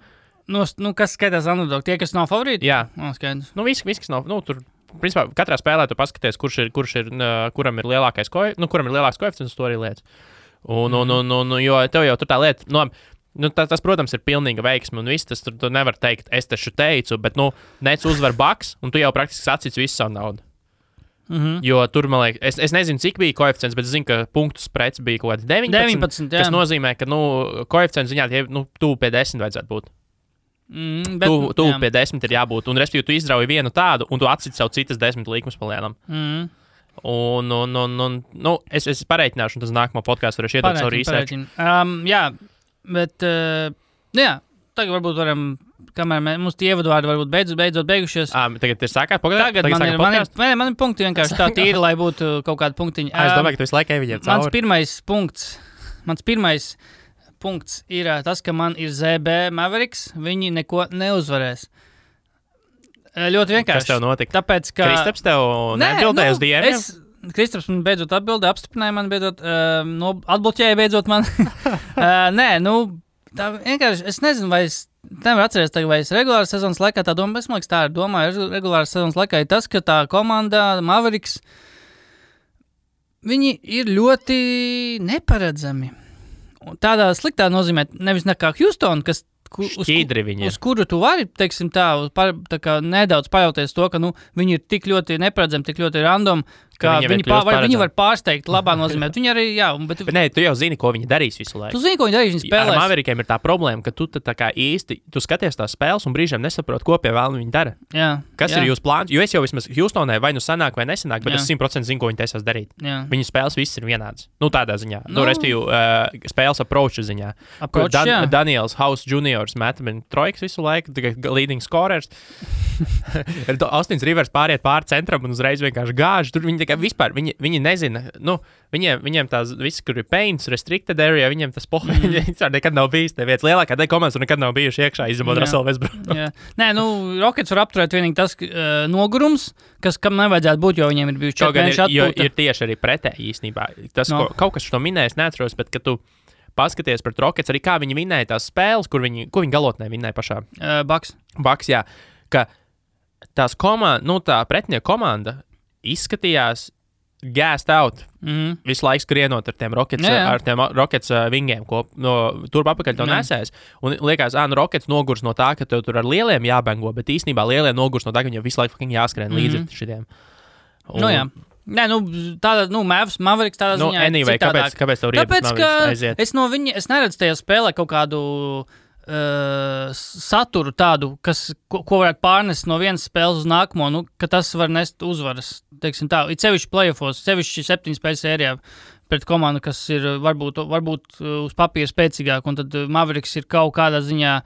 Speaker 1: Kas skaitās underdog? Tie, kas nav favorīti?
Speaker 2: Jā.
Speaker 1: Skaidrs.
Speaker 2: Visi, kas nav, tur, principā, katrā spēlē tu paskaties, kuram ir lielākais koeficients, to arī lietas. Jo tev jau tur tā lieta, tas, protams, ir pilnīga veiksme, un viss tas tur tu nevar teikt, es taču teicu, bet, Nets uzvar Bucks, un tu jau praktiski sacīts visu savu naudu. Jo tur, man liekas, es nezinu, cik bija koeficients, bet es zinu, ka punktu sprets bija kaut kāds 19, kas nozīmē, ka, koeficients ziņā, tuvu pie 10 vajadzētu būt. Tuvu pie 10 ir jābūt, un respektīvi tu izrauji vienu tādu, un tu atciti savu citas 10 līkumus palēnām. Es pareiķināšu, un tas nākamā podkāstu varēšu iedot savu research.
Speaker 1: Jā, bet, tagad varbūt varam kamēr mums tie ievadvārdi varbūt beidzot beigušies.
Speaker 2: Tagad ir sākās
Speaker 1: pagaidām. Tagad man ir punkti vienkārši tā tīri, lai būtu kaut kāda punktiņa.
Speaker 2: Es domāju, ka tu visu laiku viņiem cauri.
Speaker 1: Mans pirmais punkts ir tas, ka man ir ZB Mavericks. Viņi neko neuzvarēs. Ļoti vienkārši.
Speaker 2: Kas tev notika?
Speaker 1: Tāpēc, ka...
Speaker 2: Kristaps tev neatbildēja uz DM-iem?
Speaker 1: Kristaps man beidzot atbildēja, apstiprināja man beidzot, atbloķēja beidzot man. Tā vienkārši, es nezinu, vai es nevaru atcerēties, vai es regulāras sezonas laikā tā domāju, es man liekas, tā ir domāju, regulāras sezonas laikā ir tas, ka tā komanda Mavericks, viņi ir ļoti neparedzami. Tādā sliktā nozīmē, nevis nekā Houston, kas uz kuru tu vari, teiksim tā kā nedaudz pajauties to, ka viņi ir tik ļoti neparedzami, tik ļoti random, ka viņi var pārsteigt labā nozīmē. Viņi arī, bet
Speaker 2: nē, tu jau zini, ko viņi darīs visu laiku.
Speaker 1: Tu zini, ko viņi darīs, viņi spēlēs.
Speaker 2: Ar Maverikiem ir tā problēma, ka tu tā kā īsti, tu skaties tās spēles un brīžiem nesaproti, ko pie vēlna viņi dara. Kas ir jūsu plāns? Jo es jau vismaz Houstonē vai sanāk vai nesanāk, bet es 100% zinu, ko viņi taisās darīt. Viņu spēles viss ir vienāds. Tādā ziņā. Respektīvi, spēles approach ziņā. Daniels House Juniors metamini trojkas visu laiku, leading scorers. Austins Rivers pāriet pāri centram un uzreiz vienkārši gāž. Tur viņi vispār, viņi nezina, viņiem tās viss, kur ir paints, restricted area, viņiem tas vispār nekad nav bijis, neviens lielākā daļa komandas tur nekad nav bijuši iekšā, izņemot Russell Westbrook.
Speaker 1: Nē, Rockets var apturēt vienīgi tas nogurums, kam nevajadzētu būt, jo viņiem ir bijuši 4 mēneši atpūta.
Speaker 2: Jo ir tieši arī pretēji īstenībā. Tas, kaut kas šo minēja, es neatceros, bet kad tu paskaties pret Rockets, arī kā viņi vinēja tās spēles, ko viņi galotnē vinēja pašā. Bucks, jā. Ka tās tā pretinieku komanda izskatījās gassed out visu laiku skrienot ar tiem Rockets vingiem, ko turp apakaļ to nesēs. Un liekas, Rockets nogurs no tā, ka tev tur ar lieliem jābengo, bet īstenībā lielie nogurs no tā, ka viņam visu laiku jāskrien līdzi šitiem.
Speaker 1: Nē, tāda, Mavericks tādā ziņā
Speaker 2: anyway,
Speaker 1: citādāk.
Speaker 2: Kāpēc tev riebas Mavericks aiziet?
Speaker 1: Es neredzu tajā spēlē kaut kādu saturu tādu, ko varētu pārnest no vienas spēles uz nākamo, ka tas var nest uzvaras, teiksim tā. Ir sevišķi playoffos, sevišķi 7 spēļu sērijā pret komandu, kas ir varbūt uz papīra spēcīgāk, un tad Mavericks ir kaut kādā ziņā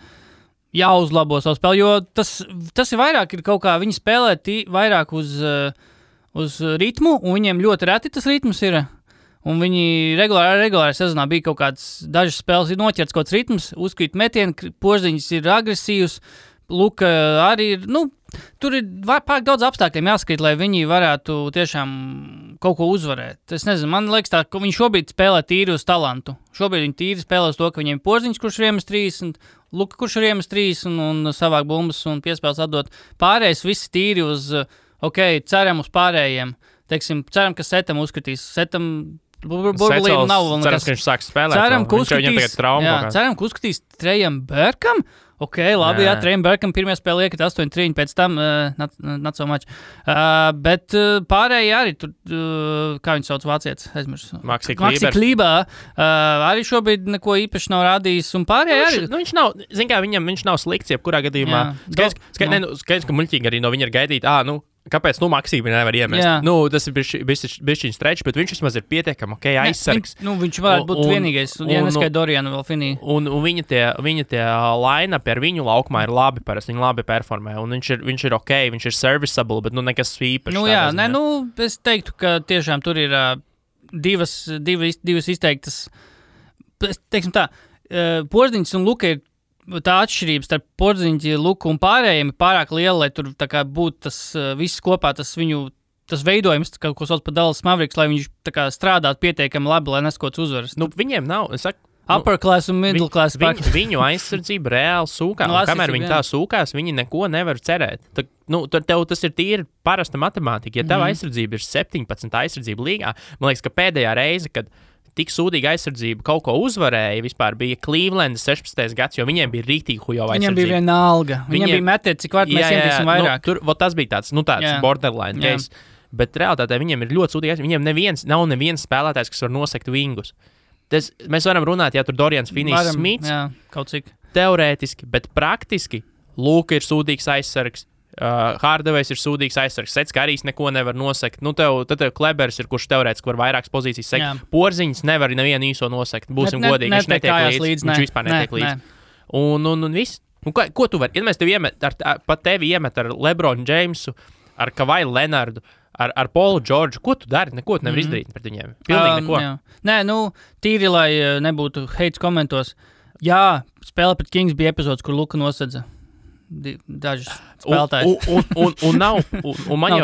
Speaker 1: jāuzlabo savu spēli, jo tas ir vairāk, ir kaut kā, viņi spēlē vairāk uz ritmu, un viņiem ļoti reti tas ritms ir. Un viņi regulāri sezonā bija kaut kādas dažas spēles, ir noķerts kaut kāds ritms, uzkrīt metieni, Porziņš ir agresīvs, Luka arī ir, tur ir pārāk daudz apstākļiem jāskrīt, lai viņi varētu tiešām kaut ko uzvarēt. Es nezinu, man liekas tā, ka viņi šobrīd spēlē tīri uz talantu. Šobrīd viņi tīri spēlē uz to, ka viņiem Porziņš, kurš ir iemes 3, un Luka, kurš ir iemes 3, un savāk bumbas un piespēles atdot. Pārējais visi tīri uz, ceram uz pārējiem. Teiksim, ceram, ka Setam uzskatīs. Burbulīm nav vēl nekas.
Speaker 2: Cerams, ka viņš sāks spēlēt.
Speaker 1: Ceram, ka uzskatīs Trejam Berkam. Labi, Trejam Berkam pirmajā spēlē iekrita 8-3, pēc tam not so much. Bet pārējie arī tur, kā viņi sauc vācietis, aizmirsu.
Speaker 2: Maxi
Speaker 1: Klībā. Arī šobrīd neko īpaši nav rādījis, un pārējie arī.
Speaker 2: Viņš nav, zin kā, viņš nav slikts, jebkurā gadījumā. Skaidrs, ka muļķīgi arī no viņa ir gaidīt, kāpēc Maxī viņa nevar iemest? Tas ir bišķiņ stretch, bet viņš vismaz ir pietiekami aizsargs.
Speaker 1: Viņš varētu būt vienīgais, ja neskai Doriana vēl finī.
Speaker 2: Un viņa tie line-up ar viņu laukumā ir labi, parasti viņi labi performē, un viņš ir viņš ir serviceable, bet nekas īpašs.
Speaker 1: Es teiktu, ka tiešām tur ir divas izteiktas, teiksim tā, Porziņš un Luka ir tā atšķirības starp Porziņu, Luku un pārējiem ir pārāk liela, lai tur tā kā būtu tas viss kopā, tas veidojums, ko sauc par Dallas Mavericks, lai viņš tā kā strādātu pietiekami labi, lai neskots uzvaras.
Speaker 2: Viņiem nav, es saku,
Speaker 1: upper class un middle class.
Speaker 2: Viņu aizsardzība reāli sūkā, un kamēr viņi tā sūkās, viņi neko nevar cerēt. Tad tev tas ir tīri parasta matemātika. Ja tev aizsardzība ir 17 aizsardzība līgā, man liekas, ka pēdējā reize, kad tik sūdīga aizsardzība kaut ko uzvarēja, vispār bija Cleveland 16. gads, jo viņiem bija rītīgi hujo aizsardzība. Viņiem bija viena alga. Viņiem bija metiet, cik vārds mēs ietīsim vairāk. Tas bija tāds borderline case. Bet realitātē viņiem ir ļoti sūdīgi aizsardzība. Viņiem nav neviens spēlētājs, kas var nosekt vingus. Mēs varam runāt, ja tur Dorians Finnijs Smits.
Speaker 1: Jā, kaut cik.
Speaker 2: Teorētiski, bet praktiski Luka ir sūdīgs aizsargs. Hardaway's ir sūdīgs aizsargs, Sets Karijs neko nevar nosekt. Tad tev Klebers ir, kurš teorētiski var vairākas pozīcijas sekt. Porziņš nevar nevienu īso nosekt. Būsim godīgi, viņš netiek līdzi. Viņš vispār netiek līdzi. Un viss. Ko tu vari? Ja mēs tevi iemet ar Lebronu Jamesu, ar Kavaju Lenardu, ar Paulu Džordžu, ko tu dari? Neko tu nevar izdarīt pret viņiem. Pilnīgi neko.
Speaker 1: Jā. Nē, tīri, lai nebūtu heits komentos. Jā, spēle pret Kings bija epizodes, kur Luka nosedza dažus spēlētājus.
Speaker 2: Un nav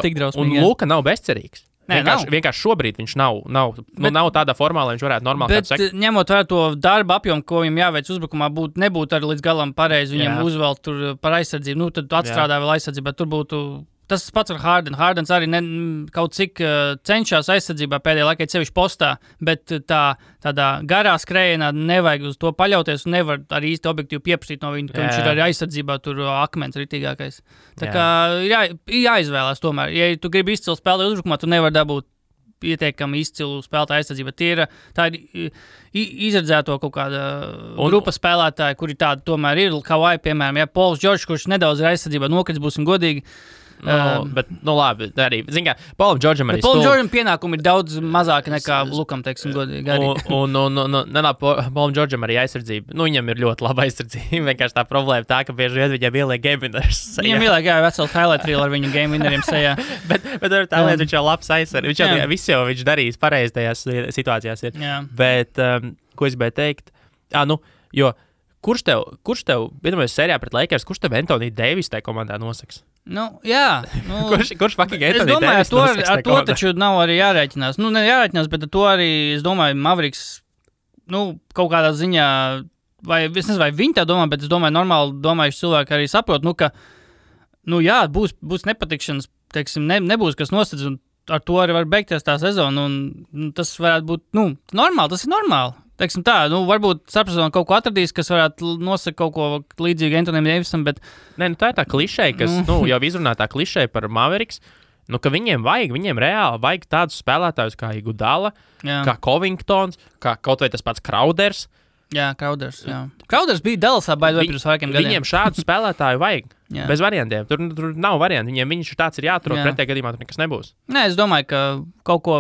Speaker 1: tik drausmīgi.
Speaker 2: Un Luka nav bezcerīgs. Vienkārši šobrīd viņš nav tādā formā, lai viņš varētu normāli kādu sekot.
Speaker 1: Bet ņemot vērā to darba apjomu, ko viņam jāveic uzbrukumā, nebūtu arī līdz galam pareizi viņam uzvelt tur par aizsardzību. Tad atstrādā vēl aizsardzību, bet tur būtu... Tas pats ar Hardenu. Hardens arī kaut cik cenšas aizsardzībā pēdējā laikā sevišķi postā, bet tādā garā skrējienā nevajag uz to paļauties un nevar arī īsti objektīvi pieprasīt no viņa, ka viņš ir arī aizsardzībā tur akmens ritīgākais. Tā kā jāizvēlās tomēr. Ja tu gribi izcilu spēlēt uzbrukumā, tu nevar dabūt pietiekami izcilu spēlētāju aizsardzību. Tā ir izredzēto kaut kāda grupa spēlētāja, kuri tādi tomēr ir. Kawhi, piemēram, Pauls Džordžs, kurš nedaudz ir aizsardzībā nokrits, būsim godīgi.
Speaker 2: Bet, arī, zin kā, Paulam Džordžam arī
Speaker 1: Paulam Džordžam pienākumi ir daudz mazāki nekā Lukam, teiksim, godīgi.
Speaker 2: Paulam Džordžam arī aizsardzība. Viņam ir ļoti laba aizsardzība. Vienkārši tā problēma tā, ka bieži vien viņam ieliek game winners.
Speaker 1: Viņam ieliek, veselu highlight reel ar viņu game winneriem sejā.
Speaker 2: bet tā lieta, viņš jau labs aizsardzība. Viņš darījis pareizi tajās situācijās. Bet, ko es gribēju teikt? Jo kurš tev, vienamais serijā pret Lakers, kurš tev Anthony Davis tajā komandā nosaks?
Speaker 1: Jā.
Speaker 2: Kurš fucking Anthony Davis
Speaker 1: nosaks? Ar to taču nav arī jārēķinās. Ne jārēķinās, bet ar to arī, es domāju, Mavericks, kaut kādā ziņā, vai es nezinu, vai viņi tā domā, bet es domāju, normāli domājuši cilvēki arī saprot, ka, būs nepatikšanas, teiksim, nebūs kas nosedz, un ar to arī var beigties tā sezona, un tas varētu būt, normāli, tas ir normāli. Teiksim tā, varbūt starpsezonā kaut ko atradīs, kas varētu nosakt kaut ko līdzīgu Anthonyam Davisam, bet...
Speaker 2: Tā ir tā klišeja, kas, jau izrunā tā klišeja par Mavericks, ka viņiem reāli vajag tādus spēlētājus kā Iguodala, kā Covingtons, kā kaut vai tas pats Crowders.
Speaker 1: Jā, Crowders, jā. Crowders bija Dallasā baidot pirms vairākiem gadiem.
Speaker 2: Viņiem šādu spēlētāju vajag, bez variantiem. Tur nav varianti, viņš tāds ir jāatrod, pretējā gadījumā tur nekas nebūs.
Speaker 1: Nē, es domāju, ka kaut ko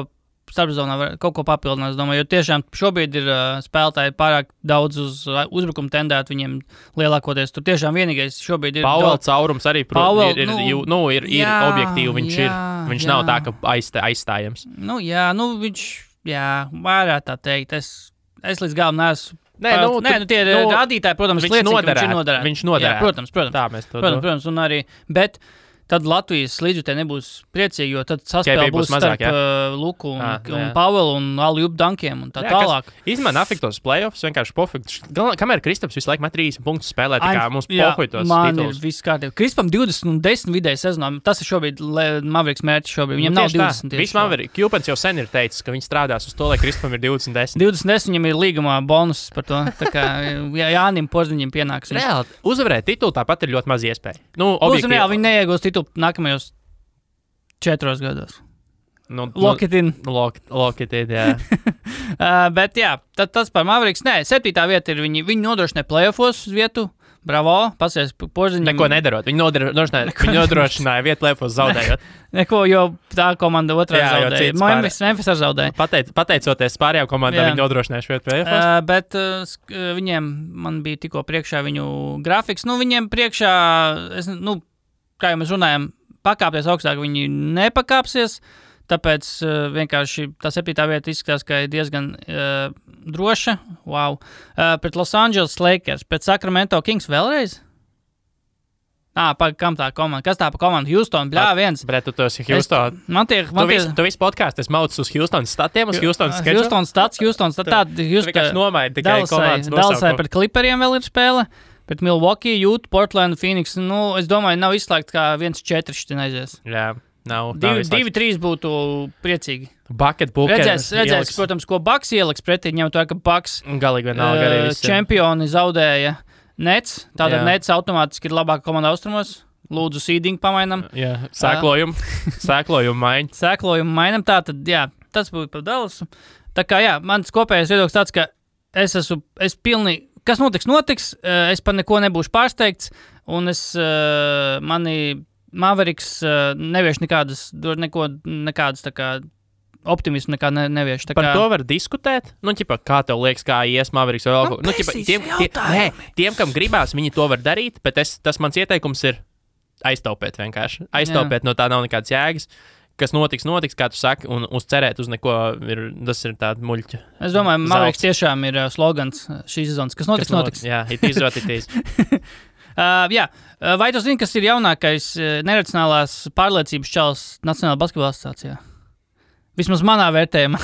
Speaker 1: starpsezonā kaut ko papildinās, domāju, jo tiešām šobrīd ir spēlētāji pārāk daudz uz uzbrukumu tendēt, viņiem lielākoties tur tiešām vienīgais šobrīd ir...
Speaker 2: Powell caurums arī, ir objektīvi, viņš nav tā, ka aizstājams.
Speaker 1: Viņš, varētu tā teikt, es līdz galam neesmu... tie ir rādītāji, protams, liecina,
Speaker 2: viņš noderētu.
Speaker 1: Protams.
Speaker 2: Tā mēs to
Speaker 1: protams, un arī, bet... Tad Latvijas līdzjutēji nebūs priecīgi, jo tad saspēle būs starp Luku un Pavelu un Aljubu Dankiem un tā tālāk.
Speaker 2: Izmēr afektos playoffs, vienkārši pofekts. Kamēr Kristaps visu laiku met 30 punktus spēlē, tā kā mums pohuitos tituls.
Speaker 1: Man ir viss kārtībā. Kristapam 20 un 10 vidēji sezonā. Tas ir šobrīd Mavericks mērķis šobrīd. Viņam nav 20 tieši.
Speaker 2: Viss Mavericks. Kjupens jau sen ir teicis, ka viņš strādās uz to, lai Kristapam ir 20-10.
Speaker 1: 20-10 viņam ir līgumā bonus par to. Tā kā Jānim Porziņam pienāks.
Speaker 2: Reāli, uzvarēt titulu tāpat ir ļoti maz iespēja.
Speaker 1: Viņi neiegūs titulu nākamajos 4 gados. Lock it in,
Speaker 2: jā.
Speaker 1: Bet jā, tas par Mavericks. Nē, 7. vieta ir viņi nodrošināja playoffos vietu. Bravo, pasies Porziņam.
Speaker 2: Neko nedarot. Viņi nodrošināja vietu playoffos zaudējot.
Speaker 1: Neko, jo tā komanda otrā zaudēja. Memphis ar zaudēja.
Speaker 2: Pateicoties pārējām komandām, viņi nodrošināja šo vietu playoffos.
Speaker 1: Bet viņiem, man bija tikko priekšā viņu grafiks. Viņiem priekšā, kā jau mēs runājam, pakāpties augstāk, viņi nepakāpsies, tāpēc vienkārši tā 7. vieta izskatās, ka ir diezgan droša. Wow. Pret Los Angeles Lakers, pret Sacramento Kings vēlreiz? Kam tā komanda? Kas tā pa komanda? Houston, viens.
Speaker 2: Bret, tu esi Houston. Tu visu podcastu esi maucis uz Houston statiem, uz Houston sketču?
Speaker 1: Houston stats.
Speaker 2: Vienkārši nomaini tikai komandas nosaukumu.
Speaker 1: Dallasai pret Clipperiem vēl ir spēle. Pret Milwaukee, Utah, Portland, Phoenix, es domāju, nav izslēgt, kā 1-4 šitin aizies.
Speaker 2: Jā, nav.
Speaker 1: 2-3 būtu priecīgi.
Speaker 2: Bucket Bookers.
Speaker 1: Redzēs, protams, ko Bucks ieliks pretī, ņemot to, ka Bucks
Speaker 2: galīgi vienalga arī visi.
Speaker 1: Čempioni zaudēja Nets, tātad Nets automātiski ir labāka komanda austrumos. Lūdzu, seeding pamainam. Jā,
Speaker 2: sēklojumu maiņu.
Speaker 1: Sēklojumu mainam, tātad, tas būtu par Dallasu. Tā kā, mans kopējais viedoklis tāds, ka es pilnīgi, kas notiks, es par neko nebūšu pārsteigts, un mani Mavericks nevieš nekādas tā kā optimismu nekā nevieš.
Speaker 2: Par to var diskutēt. Nu, ķipa, kā tev liekas, kā ies Mavericks vai vēl kaut ko. Nu, ķipa, tiem, kam gribās, viņi to var darīt, bet tas mans ieteikums ir aiztaupēt vienkārši. Aiztaupēt, no tā nav nekādas jēgas. Kas notiks, kā tu saki, un uzcerēt uz neko, tas ir tāda muļķa.
Speaker 1: Es domāju, Mavericks tiešām ir slogans šīs sezonas. Kas notiks?
Speaker 2: Jā, it is what it is.
Speaker 1: Vai tu zini, kas ir jaunākais neracionālās pārliecības čalis Nacionālajā basketbola asociācijā? Vismaz manā vērtējumā.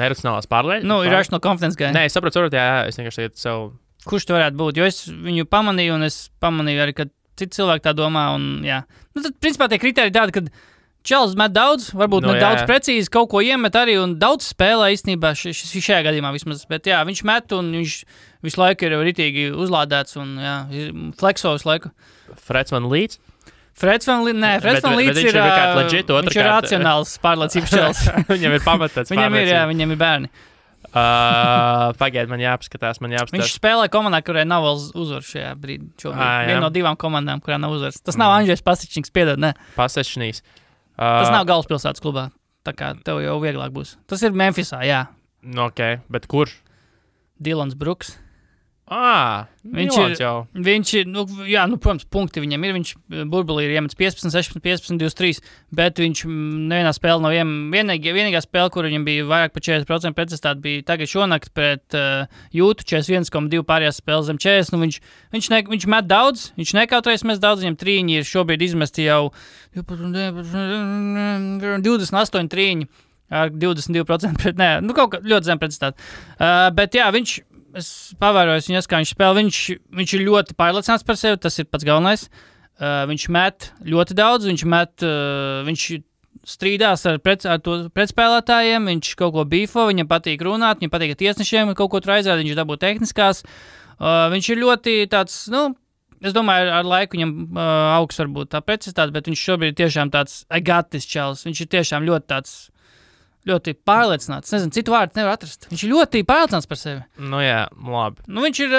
Speaker 2: Neracionālās pārliecības?
Speaker 1: Nu, ir rational confidence guy.
Speaker 2: Nē, es saprotu, es vienkārši tagad sev...
Speaker 1: Kurš tu varētu būt? Jo es viņu pamanīju, un es pamanīju arī, ka citi cilvēki tā domā, un jā. Nu, tad, principā, tie kriteriji tādi, ka Čels met daudz, varbūt ne daudz precīzi, kaut ko iemet arī un daudz spēlē īstenībā šajā gadījumā vismaz. Bet jā, viņš met un viņš visu laiku ir ritīgi uzlādēts un jā, flexo visu laiku.
Speaker 2: Freds Van Līts?
Speaker 1: Freds Van Līts ir viņš ir racionāls pārliecības čels.
Speaker 2: Viņam ir pamatāts pārliecības.
Speaker 1: Viņam ir bērni.
Speaker 2: Pagaid, man jāapskatās.
Speaker 1: Viņš spēlē komandā, kurai nav vēl uzvaru šajā brīdī. Viena no 2 komandām, kurā nav uzvaras. Tas nav Andžejs Pasečnīgs, piedod, ne?
Speaker 2: Pasečnīgs.
Speaker 1: Tas nav galvaspilsētas klubā, tā kā tev jau vieglāk būs. Tas ir Memphisā, jā.
Speaker 2: Ok, bet kurš?
Speaker 1: Dylans Brooks.
Speaker 2: Viņš
Speaker 1: ir, protams, punkti viņam ir. Viņš burbulī ir iemetis 15, 16, 15, 23, bet viņš nevienā spēlē nav vienīgā spēle, kur viņam bija vairāk par 40% precizitāte, bija tagad šonakt pret Jūtu 41,2 pārējās spēles zem 40. Nu, viņš met daudz, viņš nekautrējas met daudz, viņam trīņi ir šobrīd izmesti jau 28 trīņi ar 22% pret, kaut kā ļoti zem precizitāte. Bet jā, es pavēroju viņu, kā viņš spēlē. Viņš ir ļoti pārliecināts par sevi, tas ir pats galvenais. Viņš met ļoti daudz, viņš strīdās ar pretspēlētājiem, viņš kaut ko bīfo, viņam patīk runāt, viņam patīk ar tiesnešiem, kaut ko tur aizrāda, viņš dabū tehniskās. Viņš ir ļoti tāds, es domāju, ar laiku viņam augs varbūt tā precizitāte, bet viņš šobrīd ir tiešām tāds agatis čels. Viņš ir tiešām ļoti tāds ļoti pārliecināts. Nezinu, citu vārdu nevar atrast. Viņš ir ļoti pārliecināts par sevi.
Speaker 2: Nu jā, labi.
Speaker 1: Nu viņš ir...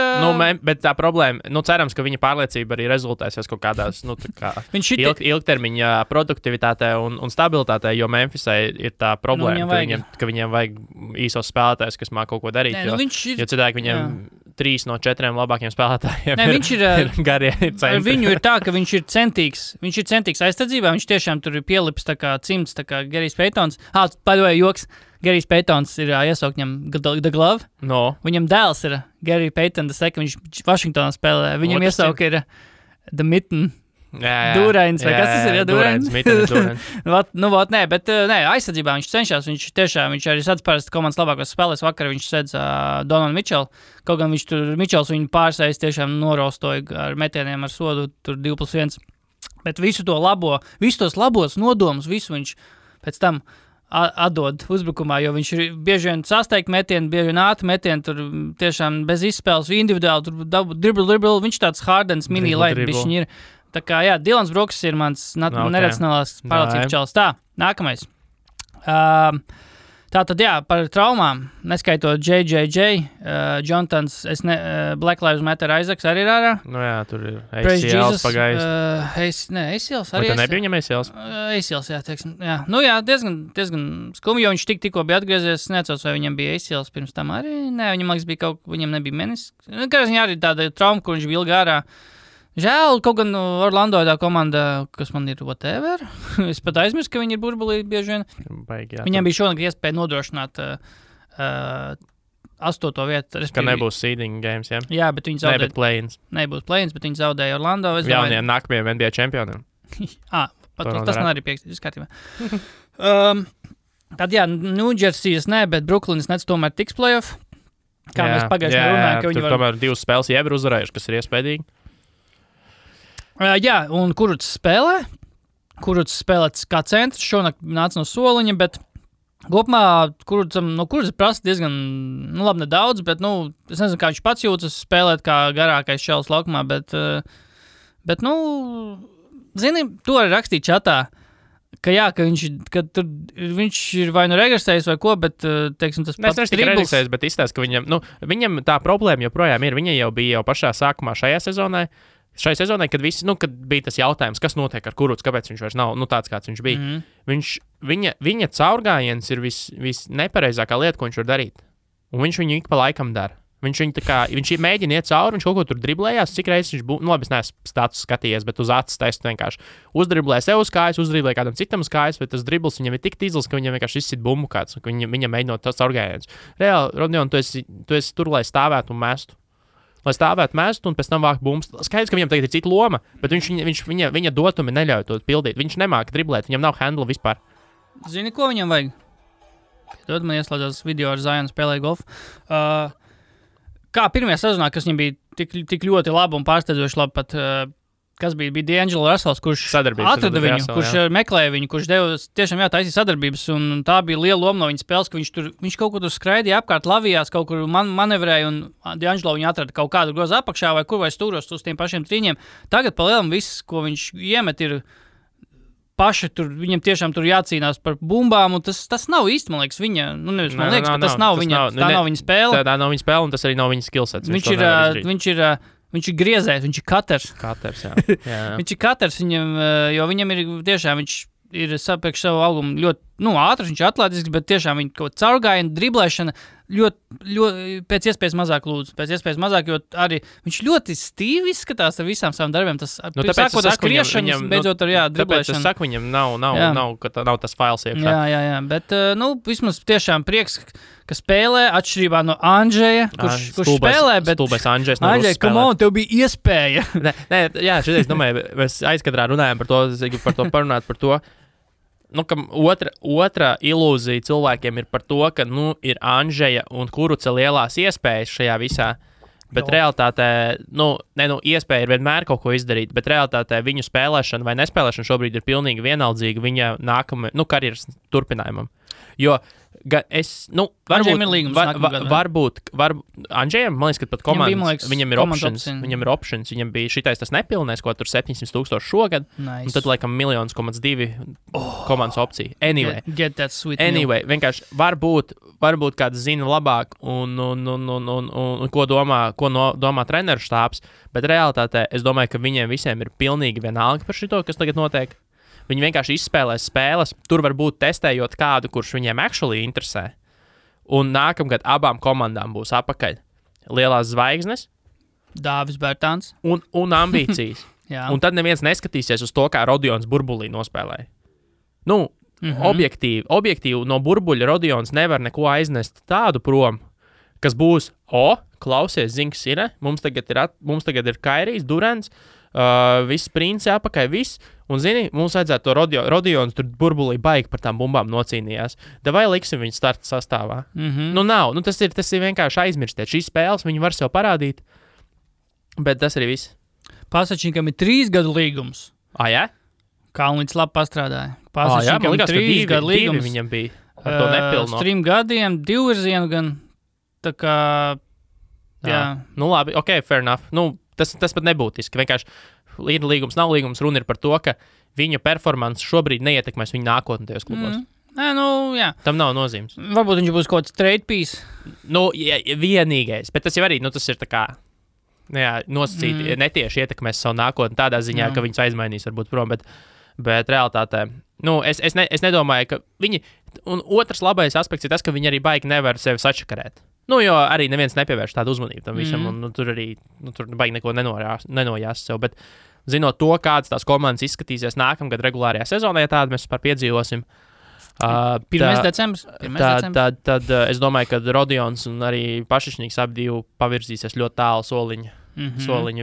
Speaker 2: bet tā problēma, cerams, ka viņa pārliecība arī rezultēsies kaut kādās, ilgtermiņa produktivitātē un stabilitātē, jo Memphisai ir tā problēma, ka viņiem vajag īsos spēlētājus, kas māk kaut ko darīt, jo citādi viņiem 3 no 4 labākiem spēlētājiem ir garie centri.
Speaker 1: Viņu ir tā, ka viņš ir centīgs aizsardzībā, viņš tiešām tur ir pielips tā kā cimds, tā kā Gerijs Paytons. Joks. Gerijs Paytons ir iesaukt viņam The Glove.
Speaker 2: No.
Speaker 1: Viņam dēls ir Gary Payton, viņš Vašingtonā spēlē. Viņam iesaukt ir The Mitten. Dūrains, vai kas tas ir?
Speaker 2: Dūrains.
Speaker 1: Aizsardzībā viņš cenšas. Viņš arī sadz parasti komandas labākos spēlēs. Vakar viņš sedz Donovan Mitchell. Kaut gan Mitchells viņu pārsējas tiešām norostoja ar metieniem ar sodu tur 2+1. Bet visus tos labos nodomus, visu viņš pēc tam atdod uzbrukumā, jo viņš ir bieži vien sasteigt metienu, bieži vien ātri metienu, tur tiešām bez izspēles, individuāli, tur dribble, viņš tāds Hardens mini-light bišķiņ ir. Tā kā, jā, Dylans Brooks ir mans neracionālās pārliecības čalis. Tā, nākamais. Tātad, jā, par traumām, neskaitot JJJ, Jontons, Black Lives Matter Isaacs arī ir ārā.
Speaker 2: Nu jā, tur ir ACLs pagājis.
Speaker 1: ACLs arī.
Speaker 2: Vai tu nebija viņam ACLs?
Speaker 1: ACLs, jā, teiksim. Jā. Nu jā, diezgan skumi, jo viņš tikko bija atgriezies, neatceros, vai viņam bija ACLs pirms tam arī. Nē, viņam nebija menisks. Kā viņa arī tāda trauma, kur viņš bija ilgi ārā. Žēl, kaut gan Orlando tā komanda, kas man ir whatever. Es pat aizmirsu, ka viņi ir burbulī bieži vien. Viņam bija šonakt iespēja nodrošināt 8. vietu.
Speaker 2: Ka nebūs seeding games, jā?
Speaker 1: Jā, bet viņi zaudēja.
Speaker 2: Nebūs
Speaker 1: play-ins, bet viņi zaudēja Orlando.
Speaker 2: Jauniem nākamajiem NBA čempioniem.
Speaker 1: Tas man arī piekstīts kārtībā. Tad jā, New Jersey's bet Brooklynas Nets tomēr tiks playoff. Kā mēs pagājušajā runājām, ka viņi
Speaker 2: var... tomēr 2 spēles jau ir uzvarējuši, kas ir iespējīgi.
Speaker 1: Jā, un Kurucs spēlē kā centrs, šonakt nāca no soliņa, bet kopumā Kurucs prasa diezgan, labi nedaudz, bet, es nezinu, kā viņš pats jūtas spēlēt kā garākais šels laukumā, bet zini, to arī rakstīt čatā, ka viņš ir vai regresējis vai ko, bet, teiksim, tas pats
Speaker 2: tribbles. Regresējis, bet izstāst, ka viņam tā problēma joprojām ir, viņa jau bija pašā sākumā šajā sezonā, Šai sezonai, kad bija tas jautājums, kas notiek ar Kurucu, kāpēc viņš vairs nav tāds, kāds viņš bija. Viņa caurgājiens ir visnepareizākā lieta, ko viņš var darīt. Un viņš viņu ik pa laikam dara. Viņš mēģina iet cauri, viņš kaut ko tur driblējās, cik reizes viņš būtu, labi, es neesmu status skatījies, bet uz acis testu vienkārši uzdriblē sev uz kājas, uzdriblē kādam citam uz kājas, bet tas dribls viņam ir tik tīzls, ka viņam vienkārši izsit bumbu kāds, ka viņam mēģinot tas caurgājiens. Reāli, Rodion, tu esi tur, lai stāvētu un mestu. Lai stāvētu mestu un pēc tam vākt bumbas. Skaidrs, ka viņam tagad ir cita loma, bet viņa dotumi neļauj to pildīt. Viņš nemāka driblēt, viņam nav handla vispār.
Speaker 1: Zini, ko viņam vajag? Tad man ieslēdzās video ar Zionu spēlēju golfu. Kā pirmajā sezonā, kas viņam bija tik ļoti labi un pārsteidzoši labi, pat, kas bija D'Angelo Russells, kurš atrada viņu, kurš meklēja viņu, kurš deva tiešām taisīja sadarbības, un tā bija liela loma no viņa spēles, ka viņš kaut kur tur skraidīja apkārt, lavījās, kaut kur manevrēja, un D'Angelo viņu atrada kaut kādu grozu apakšā vai kur vai stūros uz tiem pašiem trīņiem. Tagad pa lielam viss, ko viņš iemet, ir paši tur, viņam tiešām tur jācīnās par bumbām, un tas nav īsti, man liekas, viņa, tas nav viņa spēle.
Speaker 2: Tā nav viņa spēle, un tas arī nav viņa skillsets.
Speaker 1: Viņš ir griezējs, viņš ir katers.
Speaker 2: Jā.
Speaker 1: Viņš ir katers, jo viņam ir tiešām, viņš ir priekš savu augumu ļoti ātrs, viņš ir atletisks, bet tiešām viņa kaut caurgājiena, driblēšana ļoti pēc iespējas mazāk lūdzu. Pēc iespējas mazāk, jo arī viņš ļoti stīvi izskatās ar visām savām darbiem. Tas sākot ar skriešanas, beidzot ar driblēšanu.
Speaker 2: Tāpēc es saku, viņam nav tas fails iekšā.
Speaker 1: Jā, bet vismaz tiešām prieks, ka spēlē atšķirībā no Andžeja, kurš spēlē, bet Andžej, come on, tev bija iespēja.
Speaker 2: Jā, šodien es domāju, mēs aizkadrā runājam par to parunāt par to. Ka otra ilūzija cilvēkiem ir par to, ka ir Andžeja un Kuruca lielās iespējas šajā visā, bet realitātē, iespēja ir vienmēr kaut ko izdarīt, bet realitātē viņu spēlēšana vai nespēlēšana šobrīd ir pilnīgi vienaldzīga viņa nākamajam, karjeras turpinājumam. Jo varbūt Andžejam, man liekas, ka pat komandas, viņam ir options, viņam bija šitais tas nepilnais, ko tur 700,000 šogad, un tad laikam 1,2 komandas opcija. Anyway,
Speaker 1: get that sweet
Speaker 2: vienkārši varbūt kāds zina labāk un ko domā treneru štābs, bet realitātē es domāju, ka viņiem visiem ir pilnīgi vienalga par šito, kas tagad notiek. Viņi vienkārši izspēlēs spēles, tur varbūt testējot kādu, kurš viņiem actually interesē. Un nākamgad abām komandām būs apakaļ lielās zvaigznes,
Speaker 1: Dāvis Bērtāns
Speaker 2: un ambīcijas. Un tad neviens neskatīsies uz to, kā Rodions burbulī nospēlēja. Objektīvi no burbuļa Rodions nevar neko aiznest tādu prom, kas būs, klausies, zini, kas ir, mums tagad ir Kairijs, Durants, viss princi apakaļ, viss. Un, zini, mums vajadzētu to Rodions tur burbulī baigi par tām bumbām nocīnījās. Davai liksim viņu starta sastāvā. Nav. Tas ir vienkārši aizmirstiet. Šīs spēles viņi var sev parādīt, bet tas arī viss.
Speaker 1: Pasačīkam ir 3 gadu līgums.
Speaker 2: Jā?
Speaker 1: Kalnīts labi pastrādāja.
Speaker 2: Pasačīkam ir 3 gadu līgums. Viņam bija ar to nepilno.
Speaker 1: 3 gadiem, 2 virzienu gan. Tā kā, jā.
Speaker 2: Labi, ok, fair enough. Tas pat nebūtiski. Vienkārši līgums nav līgums. Runa ir par to, ka viņa performance šobrīd neietekmēs viņa nākotni tajos klubos.
Speaker 1: Jā.
Speaker 2: Tam nav nozīmes.
Speaker 1: Varbūt viņš būs kaut kāds trade piece.
Speaker 2: Vienīgais. Bet tas jau arī, tas ir tā kā, nosacīti, netieši ietekmēs savu nākotni tādā ziņā, ka viņus aizmainīs varbūt prom, bet realitātē, es nedomāju, ka viņi, un otrs labais aspekts ir tas, ka viņi arī baigi nevar sevi sačakarēt. Jo arī neviens nepievērš tādu uzmanību tam visam, un tur arī, tur baigi neko nenojās sev, bet zinot to, kādas tās komandas izskatīsies nākamgad regulārajā sezonā, ja tādu mēs vispār piedzīvosim,
Speaker 1: 1. decembris.
Speaker 2: Tad es domāju, ka Rodions un arī Pašišņīgs abi pavirzīsies ļoti tālu soliņu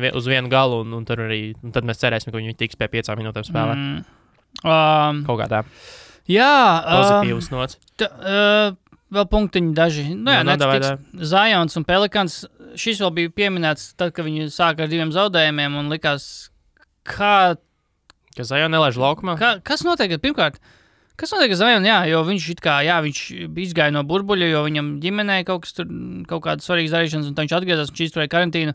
Speaker 2: uz vienu galu, un tad mēs cerēsim, ka viņi tiks pie 5 minūtēm spēlēt. Kaut kā tā.
Speaker 1: Jā.
Speaker 2: Pozitīvs nots.
Speaker 1: Vēl punktiņi daži. Zions un Pelikans. Šis vēl bija pieminēts tad, kad viņi sāka ar 2 zaudējumiem un likās,
Speaker 2: ka Zion nelaiž laukumā?
Speaker 1: Kas notiek? Pirmkārt, kas notiek ar Zion? Jā, jo viņš viņš izgāja no burbuļa, jo viņam ģimenē kaut kādas svarīgas darīšanas, un tad viņš atgriezās un izturēja karantīnu.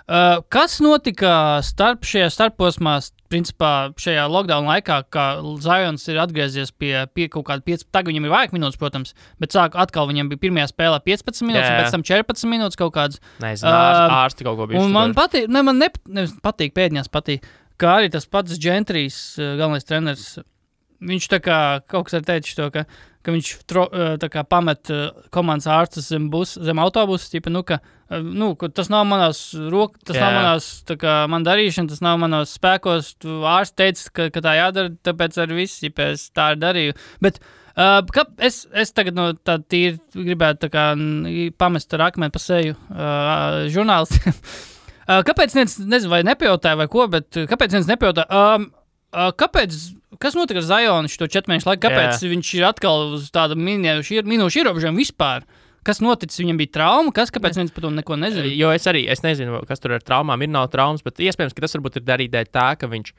Speaker 1: Kas notika šajā starposmā, principā šajā lockdown laikā, kā Zions ir atgriezies pie kaut kāda 15, tagad viņam ir vairāk minūtes, protams, bet atkal viņam bija pirmajā spēlē 15 minūtes, un pēc tam 14 minūtes kaut kādas.
Speaker 2: Nezinu, ārsti kaut ko bijuši.
Speaker 1: Un man patīk, man patīk, pēdņās patīk, kā arī tas pats Gentrijs, galvenais treneris, viņš tā kā kaut kas ar teicis to, ka viņš tā kā pamet komandas ārstus zem autobusu, tipa, tas nav manās rokas, tas nav manās, tā kā man darīšana, tas nav manos spēkos, tu ārsts teica, ka tā jādara, tāpēc arī viss, ja es tā arī darīju. Bet es tagad tā tīri gribētu tā kā pamest ar akmeni pa seju žurnālistiem. Kāpēc nezinu, vai nepajautāju vai ko, bet kāpēc nepajautāju? Kas notika ar Zionu šo 4 mēnešu laiku? Kāpēc viņš ir atkal uz tādu minūšu ierobežojumu vispār? Kas noticis? Viņam bija trauma? Kāpēc viens par to neko nezina?
Speaker 2: Jo es nezinu, kas tur ar traumām ir, nav traumas, bet iespējams, ka tas varbūt ir darīt dēļ tā, ka viņš,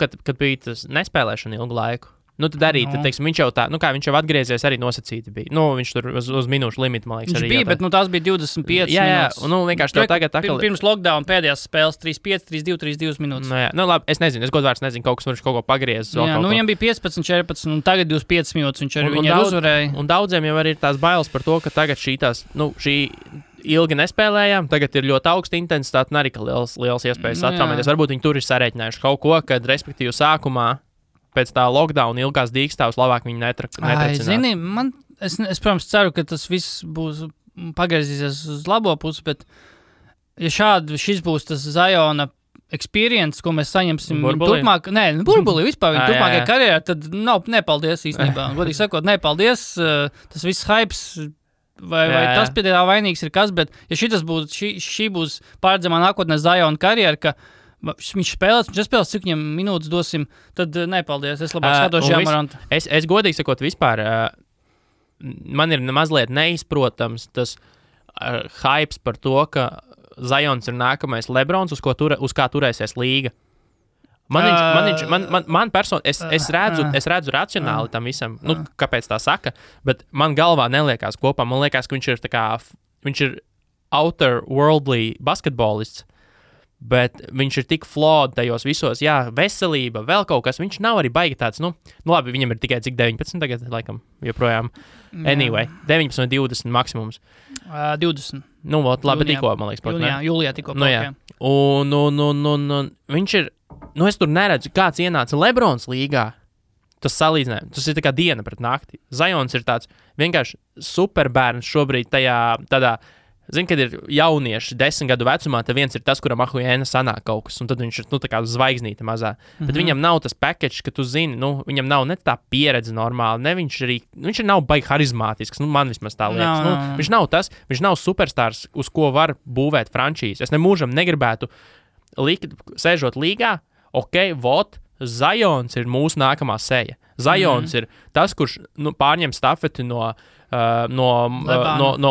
Speaker 2: kad bija tas nespēlēšana ilgu laiku. Tad arī, teiksim, viņš jau viņš jau atgriezies arī nosacīti bija. Viņš tur uz minūšu limitu, man liekas,
Speaker 1: viņš arī bija, bet tās bija 25 minūtes.
Speaker 2: Jā, vienkārši tev tagad atkal...
Speaker 1: Pirms lockdown pēdējās spēles 3-5, 3-2, 3-2 minūtes.
Speaker 2: Labi, es nezinu, es godvārds nezinu, kaut kas viņš kaut ko pagriezis.
Speaker 1: Viņam bija 15, 14, un tagad 25 minūtes viņš arī uzvarēja.
Speaker 2: Un daudziem jau arī ir tās bailes par to, ka tagad šī ilgi nespēlējām, tagad ir ļoti augsta intensitāte un arī liels iespējas atraumēties. Varbūt viņi tur ir sarēķinājuši kaut ko, kad respektīvi sākumā pēc tā lockdown ilgās dīkstāvs labāk viņi netracināt.
Speaker 1: Zini, es protams ceru, ka tas viss būs pagriezīsies uz labo pusi, bet ja šis būs tas Ziona experience, ko mēs saņemsim turpmāk, burbulī vispār viņa turpmākajā karjerā, tad nepaldies īstenībā. Godīgi sakot, nepaldies, tas viss hypes, vai tas pie tā vainīgs ir kas, bet ja šī būs pārredzamā nākotnē Ziona karjera, ka viņš spēlēs, cik viņam minūtes dosim, tad nepaldies, es labāk skatos Žēmarantu.
Speaker 2: Es godīgi sakot vispār, man ir mazliet neizprotams tas hypes par to, ka Zions ir nākamais Lebrons, uz kā turēsies līga. Man personīgi, es redzu racionāli tam visam, kāpēc tā saka, bet man galvā neliekās kopā, man liekas, ka viņš ir outer worldly basketbolists, bet viņš ir tik flawed tajos visos, veselība, vēl kaut kas, viņš nav arī baigi tāds, labi, viņam ir tikai cik 19 tagad, laikam, joprojām, anyway, 19 vai 20 maksimums.
Speaker 1: 20.
Speaker 2: Labi, tikko, man liekas.
Speaker 1: Jūlijā tikko.
Speaker 2: Un viņš ir, es tur neredzu, kāds ienāca Lebrons līgā, tas salīdzinājums, tas ir tā kā diena pret nakti. Zions ir tāds vienkārši superbērns šobrīd tādā, zini, kad ir jaunieši 10 gadu vecumā, tad viens ir tas, kuram ahujēna sanāk kaut kas, un tad viņš ir, tā kā zvaigznīte mazā. Bet viņam nav tas package, ka tu zini, viņam nav ne tā pieredze normāli, ne viņš ir nav baigi harizmātisks, man vismaz tā liekas. Viņš nav tas, viņš nav superstārs, uz ko var būvēt frančīzi. Es nemūžam negribētu sēžot līgā, Zions ir mūsu nākamā seja. Zions ir tas, kurš pārņem stafeti no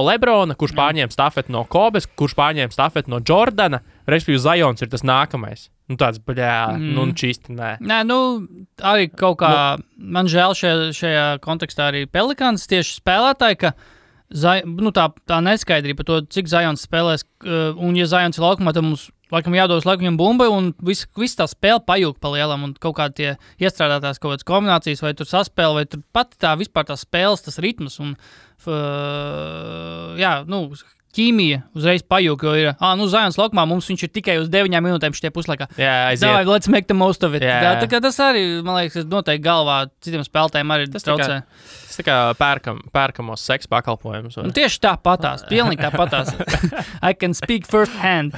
Speaker 2: Lebrona, kurš pārņēma stafeti no Kobes, kurš pārņēma stafeti no Jordana, respektīvi Zions ir tas nākamais. Tāds, čīsti, nē.
Speaker 1: Nē, arī kaut kā, man žēl šajā kontekstā arī Pelikāns tieši spēlētāji, ka tā neskaidrība par to, cik Zions spēlēs, un ja Zions ir laukumā, tad mums laikam jādos laiku viņam bumbai, un viss tā spēle pajūg pa lielam, un kaut kā tie iestrādātās kaut kādas kombinācijas, vai tur saspēle, vai tur pat vispār tā spēles, tas ritms, un ķīmija uzreiz pajūg, jo ir, Zions laukumā mums viņš ir tikai uz 9 minūtēm šitie puslaikā.
Speaker 2: Aiziet.
Speaker 1: Let's make the most of it. Tā kā tas arī, man liekas, noteikti galvā citiem spēlētājiem arī traucē.
Speaker 2: Tas tā kā pērkamos seksa pakalpojumus.
Speaker 1: Tieši tāpatās, pilnīgi tāpatās. I can speak first hand.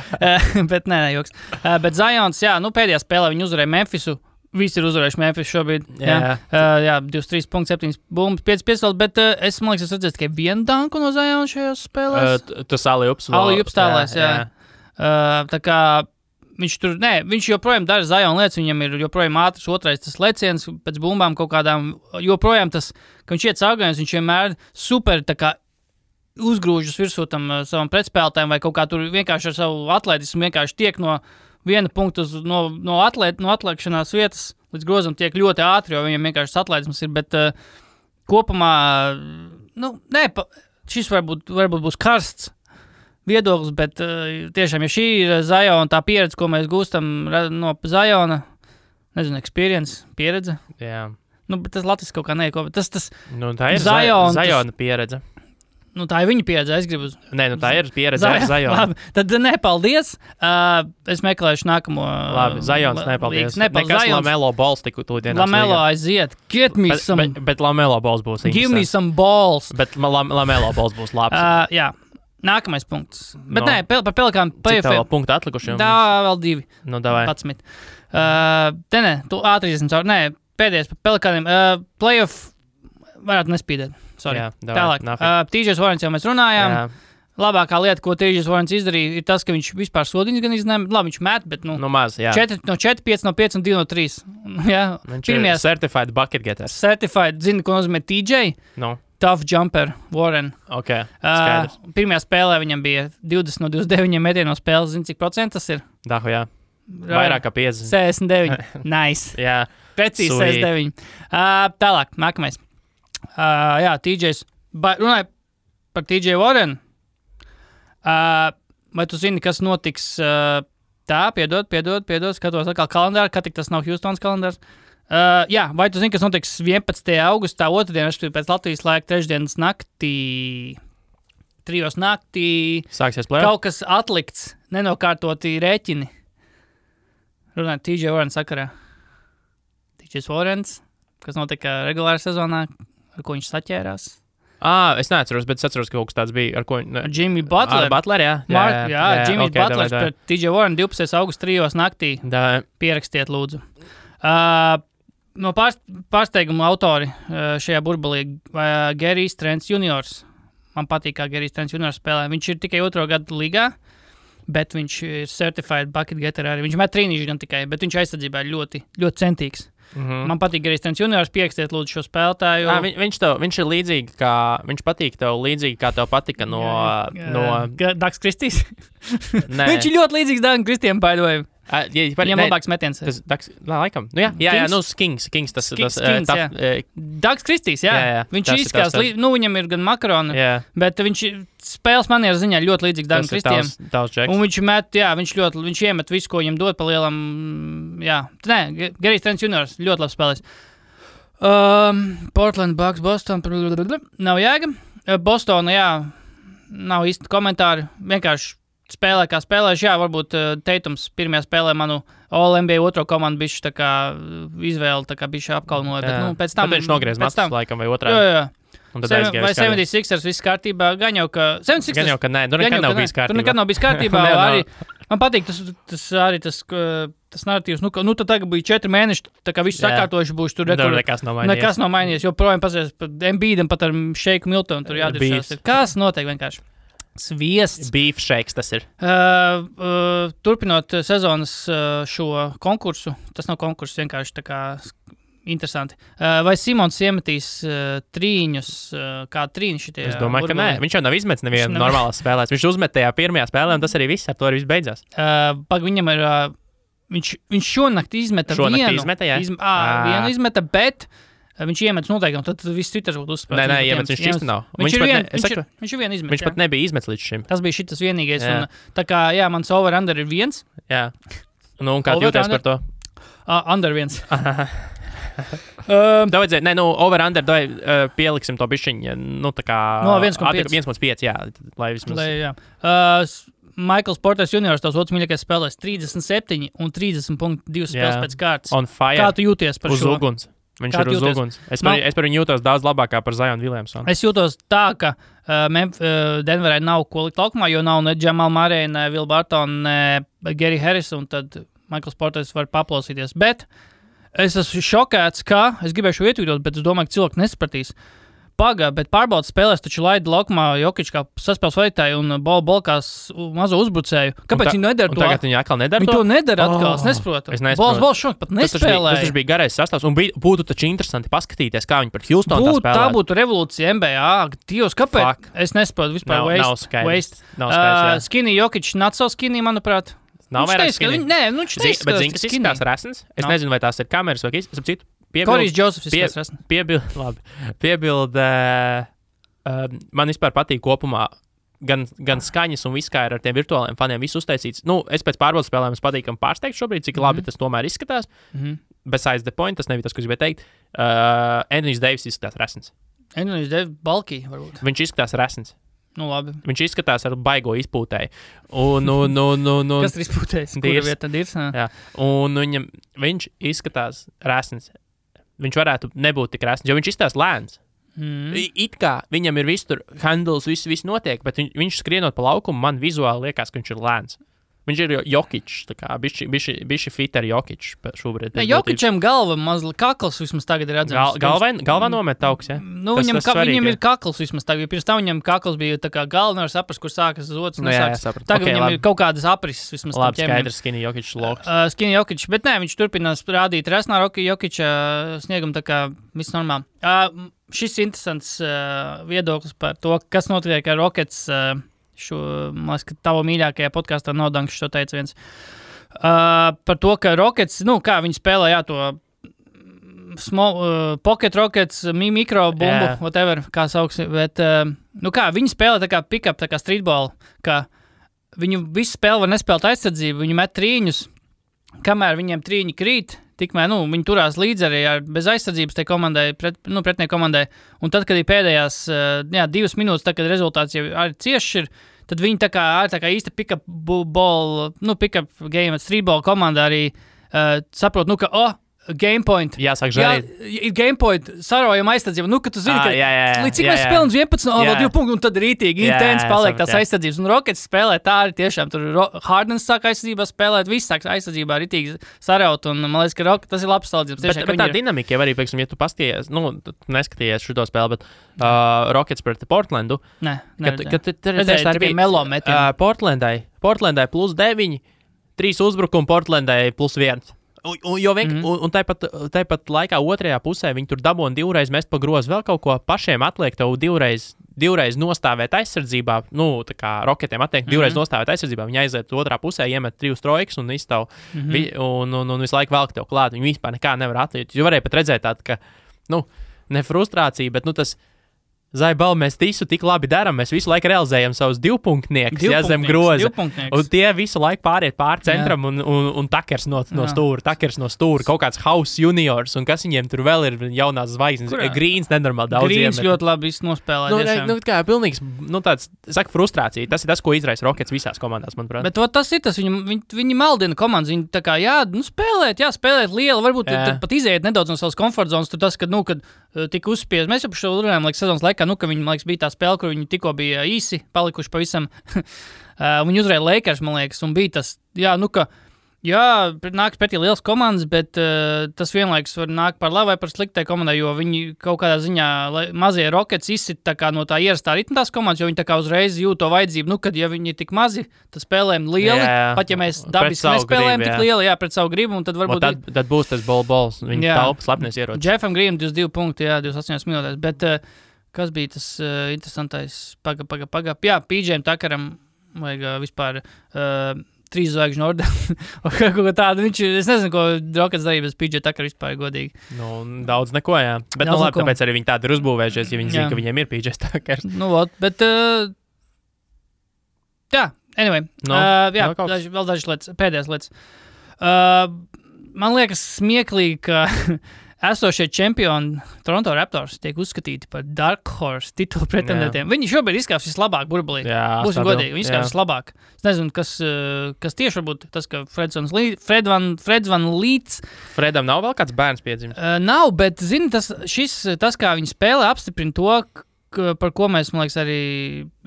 Speaker 1: Bet nē, joks. Bet Zions, pēdējā spēlē viņi uzvarēja Memphisu. Visi ir uzvarējuši Memphis šobrīd. 23.7 bumbas, 5 piesaules, bet es redzēju tikai vienu danku no Ziona šajās spēlēs.
Speaker 2: Tas Ali-Ups
Speaker 1: tālēs, tā kā viņš joprojām dara Ziona lietas, viņam ir joprojām ātrs otrais tas leciens pēc bumbām kaut kādām, joprojām tas, ka viņš iet caurgājums, viņš vienmēr super tā kā uzgrūžas virsū tam savam pretspēlētājiem vai kaut kā tur vienkārši ar savu atletismu vienkārši tiek no viena punkta no atliekšanās vietas līdz grozam tiek ļoti ātri, jo viņam vienkārši atletisms ir, bet kopumā, šis varbūt būs karsts, viedoklis, bet tiešām, ja šī ir Ziona tā pieredze, ko mēs gūstam no Ziona, nezinu, pieredze.
Speaker 2: Jā.
Speaker 1: Nu, bet tas Latvijas kaut kā neko, tas
Speaker 2: Nu, tā ir Ziona pieredze.
Speaker 1: Nu, tā ir viņa pieredze, es gribu.
Speaker 2: Nē, nu tā ir pieredze ar Zionu.
Speaker 1: Labi, tad nepaldies. Es meklēšu nākamo.
Speaker 2: Labi, Zions, nepaldies. Nekas Lamelo balls tik tūdienās.
Speaker 1: Lamelo aiziet. Get me some.
Speaker 2: Bet Lamelo balls būs.
Speaker 1: Give me some balls.
Speaker 2: Bet Lamelo balls būs labs.
Speaker 1: Jā. Nākamais punkts. Bet nē, par Pelikānu
Speaker 2: playoff. Cik tev punktu atlikuši?
Speaker 1: Tā, vēl 2.
Speaker 2: Nu, davai.
Speaker 1: 11. Te tu ātri izsim caur. Nē, pēdējais par Pelikāniem. Playoff varētu nespīdēt. Sorry.
Speaker 2: Jā, davai.
Speaker 1: Tālāk. TJs Warrens jau mēs runājām. Jā. Labākā lieta, ko TJs Warrens izdarīja, ir tas, ka viņš vispār sodiņas gan izņēma. Labi, viņš met, bet
Speaker 2: maz, jā.
Speaker 1: 4 no 4, 5 no 5 un 2 no 3. Jā.
Speaker 2: Viņš ir certified bucket getter.
Speaker 1: Certified, zini, ko nozīmē TJ?
Speaker 2: No.
Speaker 1: Tough jumper, Warren.
Speaker 2: Ok, skaidrs.
Speaker 1: Pirmajā spēlē viņam bija 20 no 29 metienu no spēles. Zini, cik procents tas ir?
Speaker 2: Dahu, jā. Vairāk kā 50.
Speaker 1: 69. Nice.
Speaker 2: Jā.
Speaker 1: Precīzi 69. Tālāk, nākamais. Jā, TJs. Runāju par TJ Warren. Vai tu zini, kas notiks piedod, skatos atkal kalendāru, ka tik tas nav Houstons kalendārs. Jā, vai tu zini, kas notiks 11. augustā, otrdien, pēc Latvijas laika, trešdienas naktī, 3 naktī.
Speaker 2: Sāksies play-off?
Speaker 1: Kaut kas atlikts, nenokārtoti rēķini. Runājot TJ Warren sakarā. TJ Warrens, kas notika regulārā sezonā, ar ko viņš saķērās.
Speaker 2: Es neatceros, bet es atceros, ka kaut kas tāds bija. Ar ko?
Speaker 1: Jimmy Butler.
Speaker 2: Butler, jā.
Speaker 1: Jimmy Butlers pret TJ Warren 12. augusta 3 naktī. Pierakstiet, lūdzu. No pārsteiguma autori šajā burbulī Gerijs Trents juniors. Man patīk, kā Gerijs Trents juniors spēlē. Viņš ir tikai 2. gadu līgā, bet viņš ir certified bucket getter arī. Viņš met trīnīši gan tikai, bet viņš aizsardzībā ir ļoti, ļoti centīgs. Man patīk Gerijs Trents juniors, pierakstiet lūdzu šo spēlētāju.
Speaker 2: Viņš ir līdzīgi, viņš patīk tev līdzīgi, kā tev patika no
Speaker 1: Daks Kristīs? Viņš ir ļoti līdzīgs Dagam Kristiem, by the way. Viņam labāks metiens.
Speaker 2: Laikam. Nu, jā, Kings tas
Speaker 1: Dags Kristīs, jā. Viņš izskās, viņam ir gan makaroni, bet viņš spēles manieru ziņā ļoti līdzīgs Dagam Kristiem. Un viņš met, viņš iemet visu, ko viņam dod pa lielam, jā. Nē, Gerijs Trents juniors, ļoti labs spēlēs. Portland, Bucks, Boston, nav jēga. Bostona, jā, nav īsti komentāri, vienkārši spēlē, kā spēlējuši, jā, varbūt Teitums pirmajā spēlē manu All-NBA otro komandu bišķi tā kā izvēli, tā kā bišķi apkalnoja, bet, pēc tam...
Speaker 2: Tad viņš nogriez matus, laikam, vai otrā.
Speaker 1: Jā. Vai 76ers viss kārtībā, gan jau, ka...
Speaker 2: Gan jau, ka nē, nekad nav bijis kārtībā.
Speaker 1: Nekad nav bijis kārtībā, arī... Man patīk tas narratīvs, tad tagad bija 4 mēneši, tā kā viss sakārtojuši būs tur.
Speaker 2: Nekas nav mainījies.
Speaker 1: Jo projām pasies pat Embiidam, pat ar Šeiku Miltonu, tur jādiršās. Kas notiek vienkārši? Sviests.
Speaker 2: Beef shakes tas ir.
Speaker 1: Turpinot sezonas šo konkursu, tas nav konkurss, vienkārši tā kā interesanti. Vai Simons iemetīs trīņus, kā trīņi šitie?
Speaker 2: Es domāju, ka nē. Viņš jau nav izmetis nevienu normālās spēlēs. Viņš uzmet tajā pirmajā spēlē, un tas arī viss, ar to arī viss beidzās.
Speaker 1: Viņam ir, viņš šonakt izmeta vienu.
Speaker 2: Šonakt izmeta, jā?
Speaker 1: Vienu izmeta, bet... Viņš iemetis noteikti, un tad viss citrs būtu uzspēlēts.
Speaker 2: Nē, iemetis viņš šis nav.
Speaker 1: Viņš ir vien izmetis.
Speaker 2: Viņš pat nebija izmetis līdz šim.
Speaker 1: Tas bija šitas vienīgais. Un, tā kā, jā, mans over-under ir 1.
Speaker 2: Jā. Nu, un kā tu jūties par to?
Speaker 1: Under 1.
Speaker 2: Over-under, pieliksim to bišķiņu, tā kā...
Speaker 1: No, 1,5.
Speaker 2: 1,5, jā. Lai vismaz...
Speaker 1: Jā. Michaels Porters juniors, tavs otrs mīļākais spēlēs 37 un 30.2 spēles pēc kārtas.
Speaker 2: On fire.
Speaker 1: Kā tu jūties par šo?
Speaker 2: Uz uguns. Viņš ir uz uguns. Es par viņu jūtos daudz labākā par Zionu Williamsonu.
Speaker 1: Es jūtos tā, ka Denverai nav ko likt laukumā, jo nav ne Jamal Murray, ne Will Barton, ne Gary Harris, un tad Michaels Porters var paplausīties. Bet es esmu šokēts, ka es gribēšu ietvītot, bet es domāju, ka cilvēki nesapratīs. Bet pārbaudas spēlēs taču laida laukumā Jokić kā saspēles vadītāju un bolkās mazo uzbrucēju. Kāpēc viņi nedara to?
Speaker 2: Tagad viņi atkal nedara to?
Speaker 1: Viņi to nedara atkal, es nesaprotu. Bols šok pat nespēlēja.
Speaker 2: Tas bija garais sastāvs un būtu taču interesanti paskatīties, kā viņi pret Houstonu tā spēlē.
Speaker 1: Tā būtu revolūcija NBA. Dievs, kāpēc?
Speaker 2: Fuck.
Speaker 1: Es nesaprotu vispār waste. Skinny Jokić, not so skinny, manuprāt.
Speaker 2: Nav vairāk skinny.
Speaker 1: Nē, viņš teica,
Speaker 2: bet zini, kas izskatās resns? Es nezinu, vai tās ir kameras vai citu.
Speaker 1: Korijs Džosefs izskatās resns.
Speaker 2: Piebilde. Man vispār patīk kopumā gan skaņas un viss kā ir ar tiem virtuāliem faniem, viss uztaisīts. Nu, es pēc pārbaudas spēlēm patīkam pārsteigt šobrīd, cik labi tas tomēr izskatās. Besides the point, tas nebija tas, ko es gribēju teikt. Anthony Davis izskatās resns.
Speaker 1: Anthony Davis balkī, varbūt.
Speaker 2: Viņš izskatās resns.
Speaker 1: Nu, labi.
Speaker 2: Viņš izskatās ar baigo izpūtēju.
Speaker 1: Kas ir izpūtējis? Kura vieta tad ir?
Speaker 2: Jā. Un viņš izskatās resns. Viņš varētu nebūt tik resns, jo viņš izskatās lēns. It kā viņam ir viss tur, handles, viss notiek, bet viņš skrienot pa laukumu, man vizuāli liekas, ka viņš ir lēns. Viņš ir Jokičs, tā kā bišķi fit ar Jokičs šobrīd.
Speaker 1: Jokičam galva mazliet kakls vismaz tagad ir redzams.
Speaker 2: Galvā nomet augs, ja?
Speaker 1: Nu, viņam ir kakls vismaz tagad. Pirms tam viņam kakls bija tā kā galva, nevar saprast, kur sākas zots. Tagad viņam ir kaut kādas aprises vismaz.
Speaker 2: Labi, skaidrs, Skinny Jokičs loks.
Speaker 1: Skinny Jokičs, bet nē, viņš turpinās rādīt resnā Jokiča sniegam tā kā viss normāli. Šis interesants viedoklis par to, kas notiek ar Rockets. Man liekas, ka tava mīļākajā podkāstā nav Danks šo teica viens. Par to, ka Rockets, kā viņi spēlē, to pocket Rockets, mikro bumbu, whatever, kā sauks, bet, viņi spēlē tā kā pick-up, tā kā streetball, ka viņu visu spēli var nespēlēt aizsardzību, viņi met trīņus, kamēr viņiem trīņi krīt, tikmēr, viņi turās līdz arī bez aizsardzības tai komandai, pretnieku komandai. Un tad, kad ir pēdējās 2 minūtes, tad, kad rezultāts jau arī cieši ir, tad viņi tā kā īsta pick-up ball, pick-up game, streetball komanda arī saprot, ka, game point.
Speaker 2: Jāsāk žēlīt.
Speaker 1: Ir game point, sarojam aizsardzību. Ka tu zini, ka līdz cik mēs spēlējam 11, vēl 2 punkti, un tad rītīgi intens paliek tās aizsardzības. Un Rockets spēlē tā arī tiešām. Tur Hardens sāk aizsardzībā spēlēt, viss sāk aizsardzībā rītīgi saraut. Un man liekas, ka tas ir labs salīdzinājums.
Speaker 2: Bet tā dinamika jau arī, pieksim, ja tu paskaties, neskaties šo spēli, bet Rockets pret Portlandu.
Speaker 1: Nē,
Speaker 2: tā
Speaker 1: bija melo metieni.
Speaker 2: Portlandai +9, 3 uzbrukumi, Portlandai +1. Un tāpat laikā otrajā pusē viņi tur dabūna 2 reizes mest pa grozu, vēl kaut ko pašiem atliek tev 2 reizes nostāvēt aizsardzībā, tā kā Rocketiem atliek 2 reizes nostāvēt aizsardzībā, viņi aiziet otrā pusē, iemet 3 trojkas un izstāv, un visu laiku velk tev klāt, viņi vispār nekā nevar atliekt, jo varēja pat redzēt tādu, ka, ne frustrācija, bet, tas Zaibal, mēs visu tik labi darām, mēs visu laiku realizējam savus 2-punktniekus, zem groza. Un tie visu laiku pāriet pār centram un takers no stūra, kaut kāds House juniors, un kas viņiem tur vēl ir jaunās zvaigznes. Grīns nenormāli daudz.
Speaker 1: Grīns ļoti labi nospēlē.
Speaker 2: Kā pilnīgs, tāds, saka, frustrācija. Tas ir tas, ko izraisa Rockets visās komandās, manuprāt.
Speaker 1: Bet tas ir tas, viņi maldina komandas, viņi tā kā, spēlēt lielu, varbūt pat iziet nedaudz no savas komfortzonas, tur tas, kad tika uzspiest. Mēs jau par šo runājām, sezonas laikā, ka viņi, man liekas, bija tā spēle, kur viņi tikko bija īsi, palikuši pavisam. Viņi uzvarēja Lakers, man liekas, un bija tas, nāks pretī liels komandas, bet tas vienlaikus var nākt par labu vai par sliktai komandai, jo viņi kaut kādā ziņā mazie Rockets izsit tā kā no tā ierastā ritma tās komandas, jo viņi tā kā uzreiz jūt to vajadzību, kad ja viņi ir tik mazi, tad spēlējam lieli, pat ja mēs dabiski nespēlējam tik lieli, pret savu gribu, un tad varbūt...
Speaker 2: Tad būs tas balls, viņi taupa slepnies ieroči.
Speaker 1: Jeffam Greenam 22 punkti, 28 minūtēs, bet... Kas bija tas interesantais? Paga. Jā, PJ'am Tuckeram vajag vispār 3 zvaigžņu ordeni. Kaut tādu viņš, es nezinu, ko Rockets darīja bez PJ Tucker vispār godīgi.
Speaker 2: Daudz neko, jā. Bet labi, tāpēc arī viņi tādi ir uzbūvējušies, ja viņi zina, ka viņiem ir PJ Tuckers.
Speaker 1: Bet anyway. Vēl dažas lietas, pēdējās lietas. Man liekas smieklīgi, ka esošie čempioni Toronto Raptors tiek uzskatīti par Dark Horse titulu pretendentiem. Viņi šobrīd izskatās vislabāk burbulī. Būsim godīgi, viņi izskatās vislabāk. Es nezinu, kas tieši varbūt tas, ka Freds Van Līts.
Speaker 2: Fredam nav vēl kāds bērns piedzimis?
Speaker 1: Nav, bet zini, tas, kā viņi spēlē, apstiprina to, par ko mēs, man liekas, arī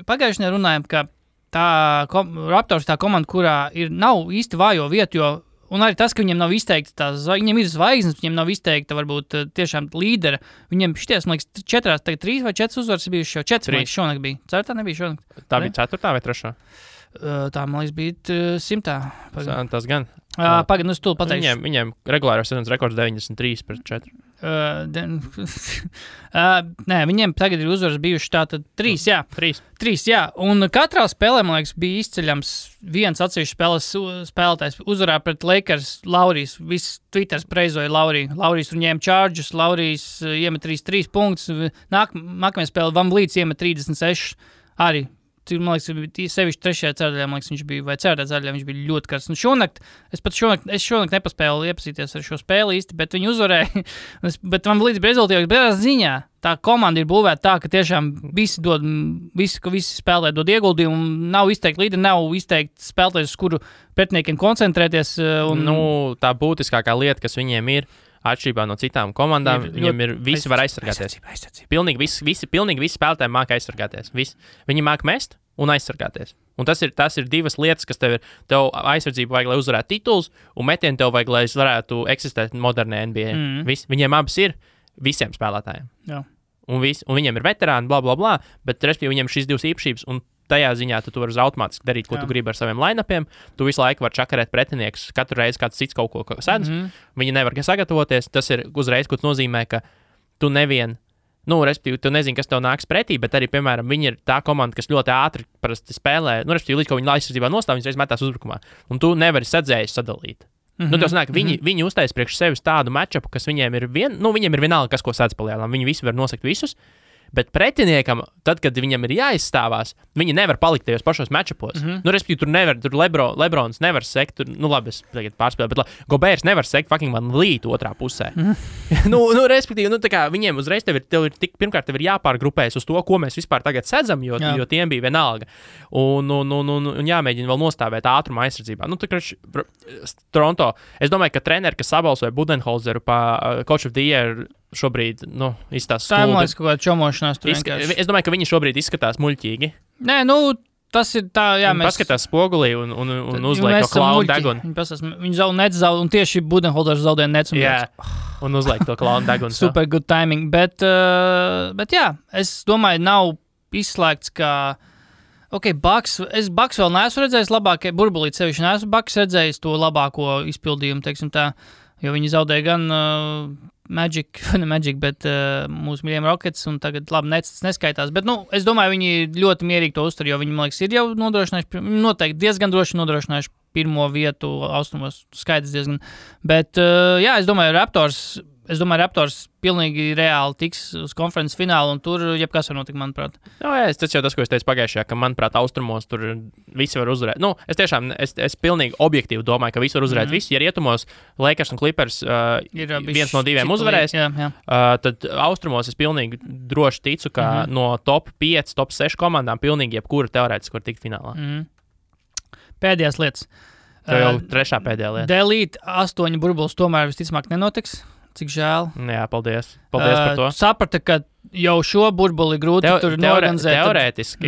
Speaker 1: pagājušajā runājam, ka Raptors tā komanda, kurā nav īsti vājo vietu, jo un arī tas, ka viņiem nav izteikta viņiem ir zvaigznes, viņiem nav izteikta varbūt tiešām līdera. Viņiem šities, man liekas, 3 vai 4 uzvaras bijuši jau 4, man liekas, šonakt bija. 4 nebija šonakt.
Speaker 2: Tā bija 4 vai 3?
Speaker 1: Tā, man liekas, bija 100.
Speaker 2: Tas gan.
Speaker 1: Pagaid, es tūlīt pateikšu.
Speaker 2: Viņiem regulārās sezonas rekords 93-4.
Speaker 1: Nē, viņiem tagad ir uzvaras bijuši tātad 3, jā. 3, jā. Un katrā spēlē, man liekas, bija izceļams viens atsevišķs spēlētājs uzvarā pret Lakers. Laurijs, viss Twitters preizoja Lauriju. Laurijs tur ņēma čārģus, Laurijs iemet 3 punktus. Nākamajā spēlē Van Vliets iemet 36 arī. man liekas, sevišķi trešajā ceturdaļā, man liekas, viņš bija, vai ceturtajā ceturdaļā viņš bija ļoti karsts. Es šonakt nepaspēju iepazīties ar šo spēli īsti, bet viņi uzvarēja. Bet man līdz rezultātiem, bet ziņā tā komanda ir būvēta tā, ka tiešām visi spēlē dod ieguldījumu, nav izteikti līderi, nav izteikti spēlētājs, uz kuru pretiniekiem koncentrēties.
Speaker 2: Tā būtiskākā lieta, kas viņiem ir, atšķirībā no citām komandām, viņiem ir visi var aizsargāties. Pilnīgi visi spēlētāji māca aizsargāties. Viņi māca mest un aizsargāties. Un tas ir divas lietas, kas tev aizsardzību vajag, lai uzvarētu tituls, un metienu tev vajag, lai varētu eksistēt modernē NBA. Viņiem abas ir visiem spēlētājiem.
Speaker 1: Jā.
Speaker 2: Un viņiem ir veterāni, bla, bla, bla, bet respektīvi viņiem ir šīs divas īpašības, un tajā ziņā tu vari automātiski darīt, ko tu gribi ar saviem line-upiem. Tu visu laiku vari čakarēt pretinieks, katru reizi kāds cits kaut ko sedz. Viņi nevar sagatavoties. Tas ir uzreiz, ko tas nozīmē, ka tu respektīvi, tu nezini, kas tev nāks pretī, bet arī, piemēram, viņi ir tā komanda, kas ļoti ātri parasti spēlē. Respektīvi, līdz ko viņi aizsardzībā nostāv, viņi reiz metās uzbrukumā. Un tu nevari sadzējis sadalīt. Tas nāk, viņi uztais priekš sevis tādu matchupu, kas viņiem ir viņiem ir vienalga, kas ko sēdz palielinām. Viņi visi var nosakt visus. Bet pretiniekam, tad, kad viņam ir jāizstāvās, viņi nevar palikt tajos pašos matchupos. Respektīvi, tur Lebrons nevar sekt, labi, es tagad pārspēlēju, bet Gobērs nevar sekt fucking man līt otrā pusē. Respektīvi, tā kā viņiem uzreiz pirmkārt tev ir jāpārgrupējas uz to, ko mēs vispār tagad sedzam, jo tiem bija vienalga. Un jāmēģina vēl nostāvēt ātruma aizsardzībā. Toronto, es domāju, ka treneri, kas sabalsoja Budenholzeru pa Coach of the Year, šobrīd, izstāsta
Speaker 1: stulbi. Tā, man liekas, kaut kāda čomošanās tur vienkārši.
Speaker 2: Es domāju, ka viņi šobrīd izskatās muļķīgi.
Speaker 1: Nē, tas ir tā, jā, mēs...
Speaker 2: Paskatās spogulī un uzliek to klaunu degunu.
Speaker 1: Viņi zaudē, un tieši Budenholzers zaudēja nec un
Speaker 2: jā, un uzliek to klaunu degunu.
Speaker 1: Super good timing, bet jā, es domāju, nav izslēgts, ka... Bucks vēl neesmu redzējis labākie, burbulīt sevišķi neesmu Bucks redzējis to labāko izpildījumu, teiksim tā, jo viņi zaudēja gan Magic, bet mūsu mīļiem Rockets, un tagad labi neskaitās. Bet, es domāju, viņi ļoti mierīgi to uztur, jo viņi, man liekas, ir jau nodrošinājuši, noteikti diezgan droši nodrošinājuši pirmo vietu austrumos, skaidrs diezgan. Bet, jā, es domāju, Raptors pilnīgi reāli tiks uz konferences finālu, un tur jebkas var notikt, manuprāt.
Speaker 2: Tas jau tas, ko es teicu pagājušajā, ka, manuprāt, austrumos tur visi var uzvarēt. Es pilnīgi objektīvi domāju, ka visi var uzvarēt. Visi, ja rietumos Lakers un Clippers viens no diviem uzvarēs, tad austrumos es pilnīgi droši ticu, ka no top 5, top 6 komandām pilnīgi jebkura teorētiski var tikt finālā.
Speaker 1: Pēdējās lietas.
Speaker 2: Tev jau trešā pēdējā lieta.
Speaker 1: Delīt 8 burbulis tomēr visticamāk nenotiks. Cik žēl.
Speaker 2: Jā, paldies par to.
Speaker 1: Saprata, ka jau šo burbuli grūti tur norganizēt.
Speaker 2: Teorētiski.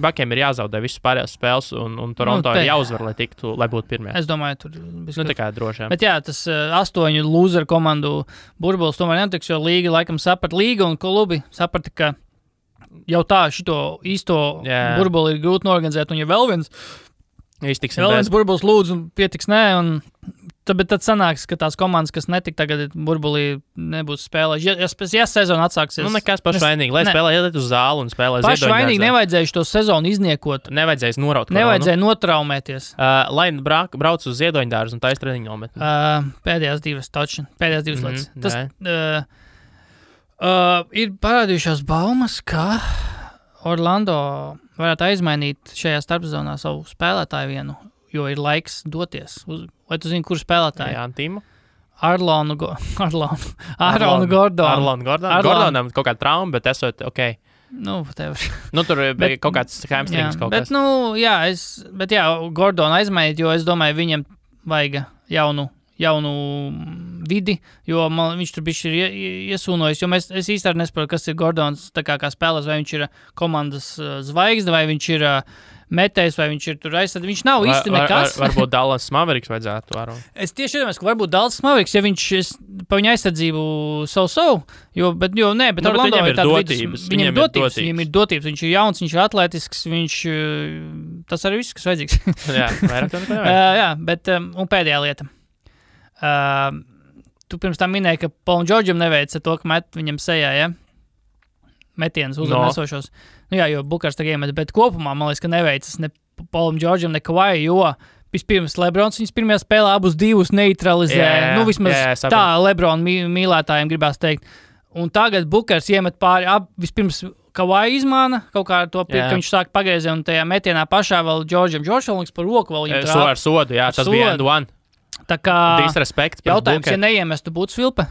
Speaker 2: Bakiem ir jāzaudē visas pārējās spēles, un Toronto ir jāuzvar, lai būtu pirmie.
Speaker 1: Es domāju, tur
Speaker 2: tā kā droši.
Speaker 1: Bet jā, tas 8 loser komandu burbulis tomēr nenotiks, jo līga laikam līga un klubi saprata, ka jau tā šito īsto burbuli ir grūti norganizēt, un ja vēl viens burbulis lūdzu un pietiks bet tad sanāks, ka tās komandas, kas netika tagad burbulī, nebūs spēlējuši. Ja sezona atsāksies...
Speaker 2: Nekas pašvainīgi, lai spēlē iet uz zāli un spēlē ziedoņdārzā.
Speaker 1: Pašvainīgi nevajadzēja šo sezonu izniekot.
Speaker 2: Nevajadzēja noraut koronu.
Speaker 1: Nevajadzēja notraumēties.
Speaker 2: Lai brauc uz ziedoņdārzu un taisa treniņu nometni.
Speaker 1: Pēdējās divas lietas. Tas ir parādījušās baumas, ka Orlando varētu aizmainīt šajā starpzonā savu spēlētāju vienu, jo ir laiks doties. Vai tu zini, kur spēlētāji?
Speaker 2: Jā, Antīmu.
Speaker 1: Arlonu Gordonu.
Speaker 2: Gordonam kaut kāda trauma, bet esot ok. Tur bija kaut kāds hamstrings kaut kas.
Speaker 1: Bet Gordonu aizmainīt, jo es domāju, viņam vajag jaunu vidi, jo viņš tur bišķi ir iesūnojis, jo es īsti arī nesaprotu, kas ir Gordons tā kā spēlēs, vai viņš ir komandas zvaigzne, vai viņš ir metējs, vai viņš ir tur aizsardz. Viņš nav īsti nekas.
Speaker 2: Varbūt Dallas Mavericks vajadzētu varu.
Speaker 1: Es tieši iedomājos, ka varbūt Dallas Mavericks, ja viņš pa viņa aizsardzību bet Orlando
Speaker 2: ir dotības.
Speaker 1: Viņam ir dotības. Viņš ir jauns, viņš ir atletisks, tas arī viss, kas vajadzīgs.
Speaker 2: Jā, vairāk to nevajag.
Speaker 1: Jā, bet, un pēdējā lieta. Tu pirms tam minēji, ka Paulam Džordžam neveica to, ka met viņam sejā, ja? Metienus uzvarnesošos. Jo Bukars tagad iemet, bet kopumā, man liekas, ka neveicas ne Paulam Džordžam, ne Kawai, jo vispirms Lebrons viņas pirmajā spēlē abus divus neutralizē. Vismaz tā Lebron mīlētājiem gribās teikt. Un tagad Bukars iemet pāri, vispirms Kawhi izmāna kaut kā to ka viņš sāk pagriezē un tajā metienā pašā vēl Džordžam Džordžam par roku vēl viņam trāpa.
Speaker 2: Ar sodu, jā, tas bija end-one.
Speaker 1: Tā kā
Speaker 2: disrespekts.
Speaker 1: Jautājums, ja neiemestu būtu svilpe?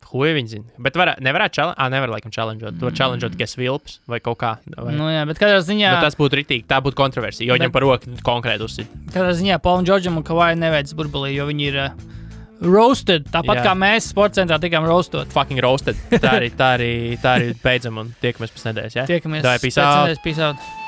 Speaker 2: Huj viņi zina. Bet nevarētu nevar laikam challengeot. Tu var challengeot tikai svilpes vai kaut kā. Vai...
Speaker 1: Nu jā, bet katrā ziņā...
Speaker 2: Bet tas būtu ritīgi, tā būtu kontroversija, jo viņam par roku konkrēti uzsit.
Speaker 1: Katrā ziņā Paulam Džordžam un Kawhi neveic burbulī, jo viņi ir roasted. Tāpat kā mēs sporta centrā tikām roastot.
Speaker 2: Fucking roasted. Tā arī beidzam un tiekamies pēc nedēļas, jā?
Speaker 1: Tiekamies pēc nedēļas, peace out.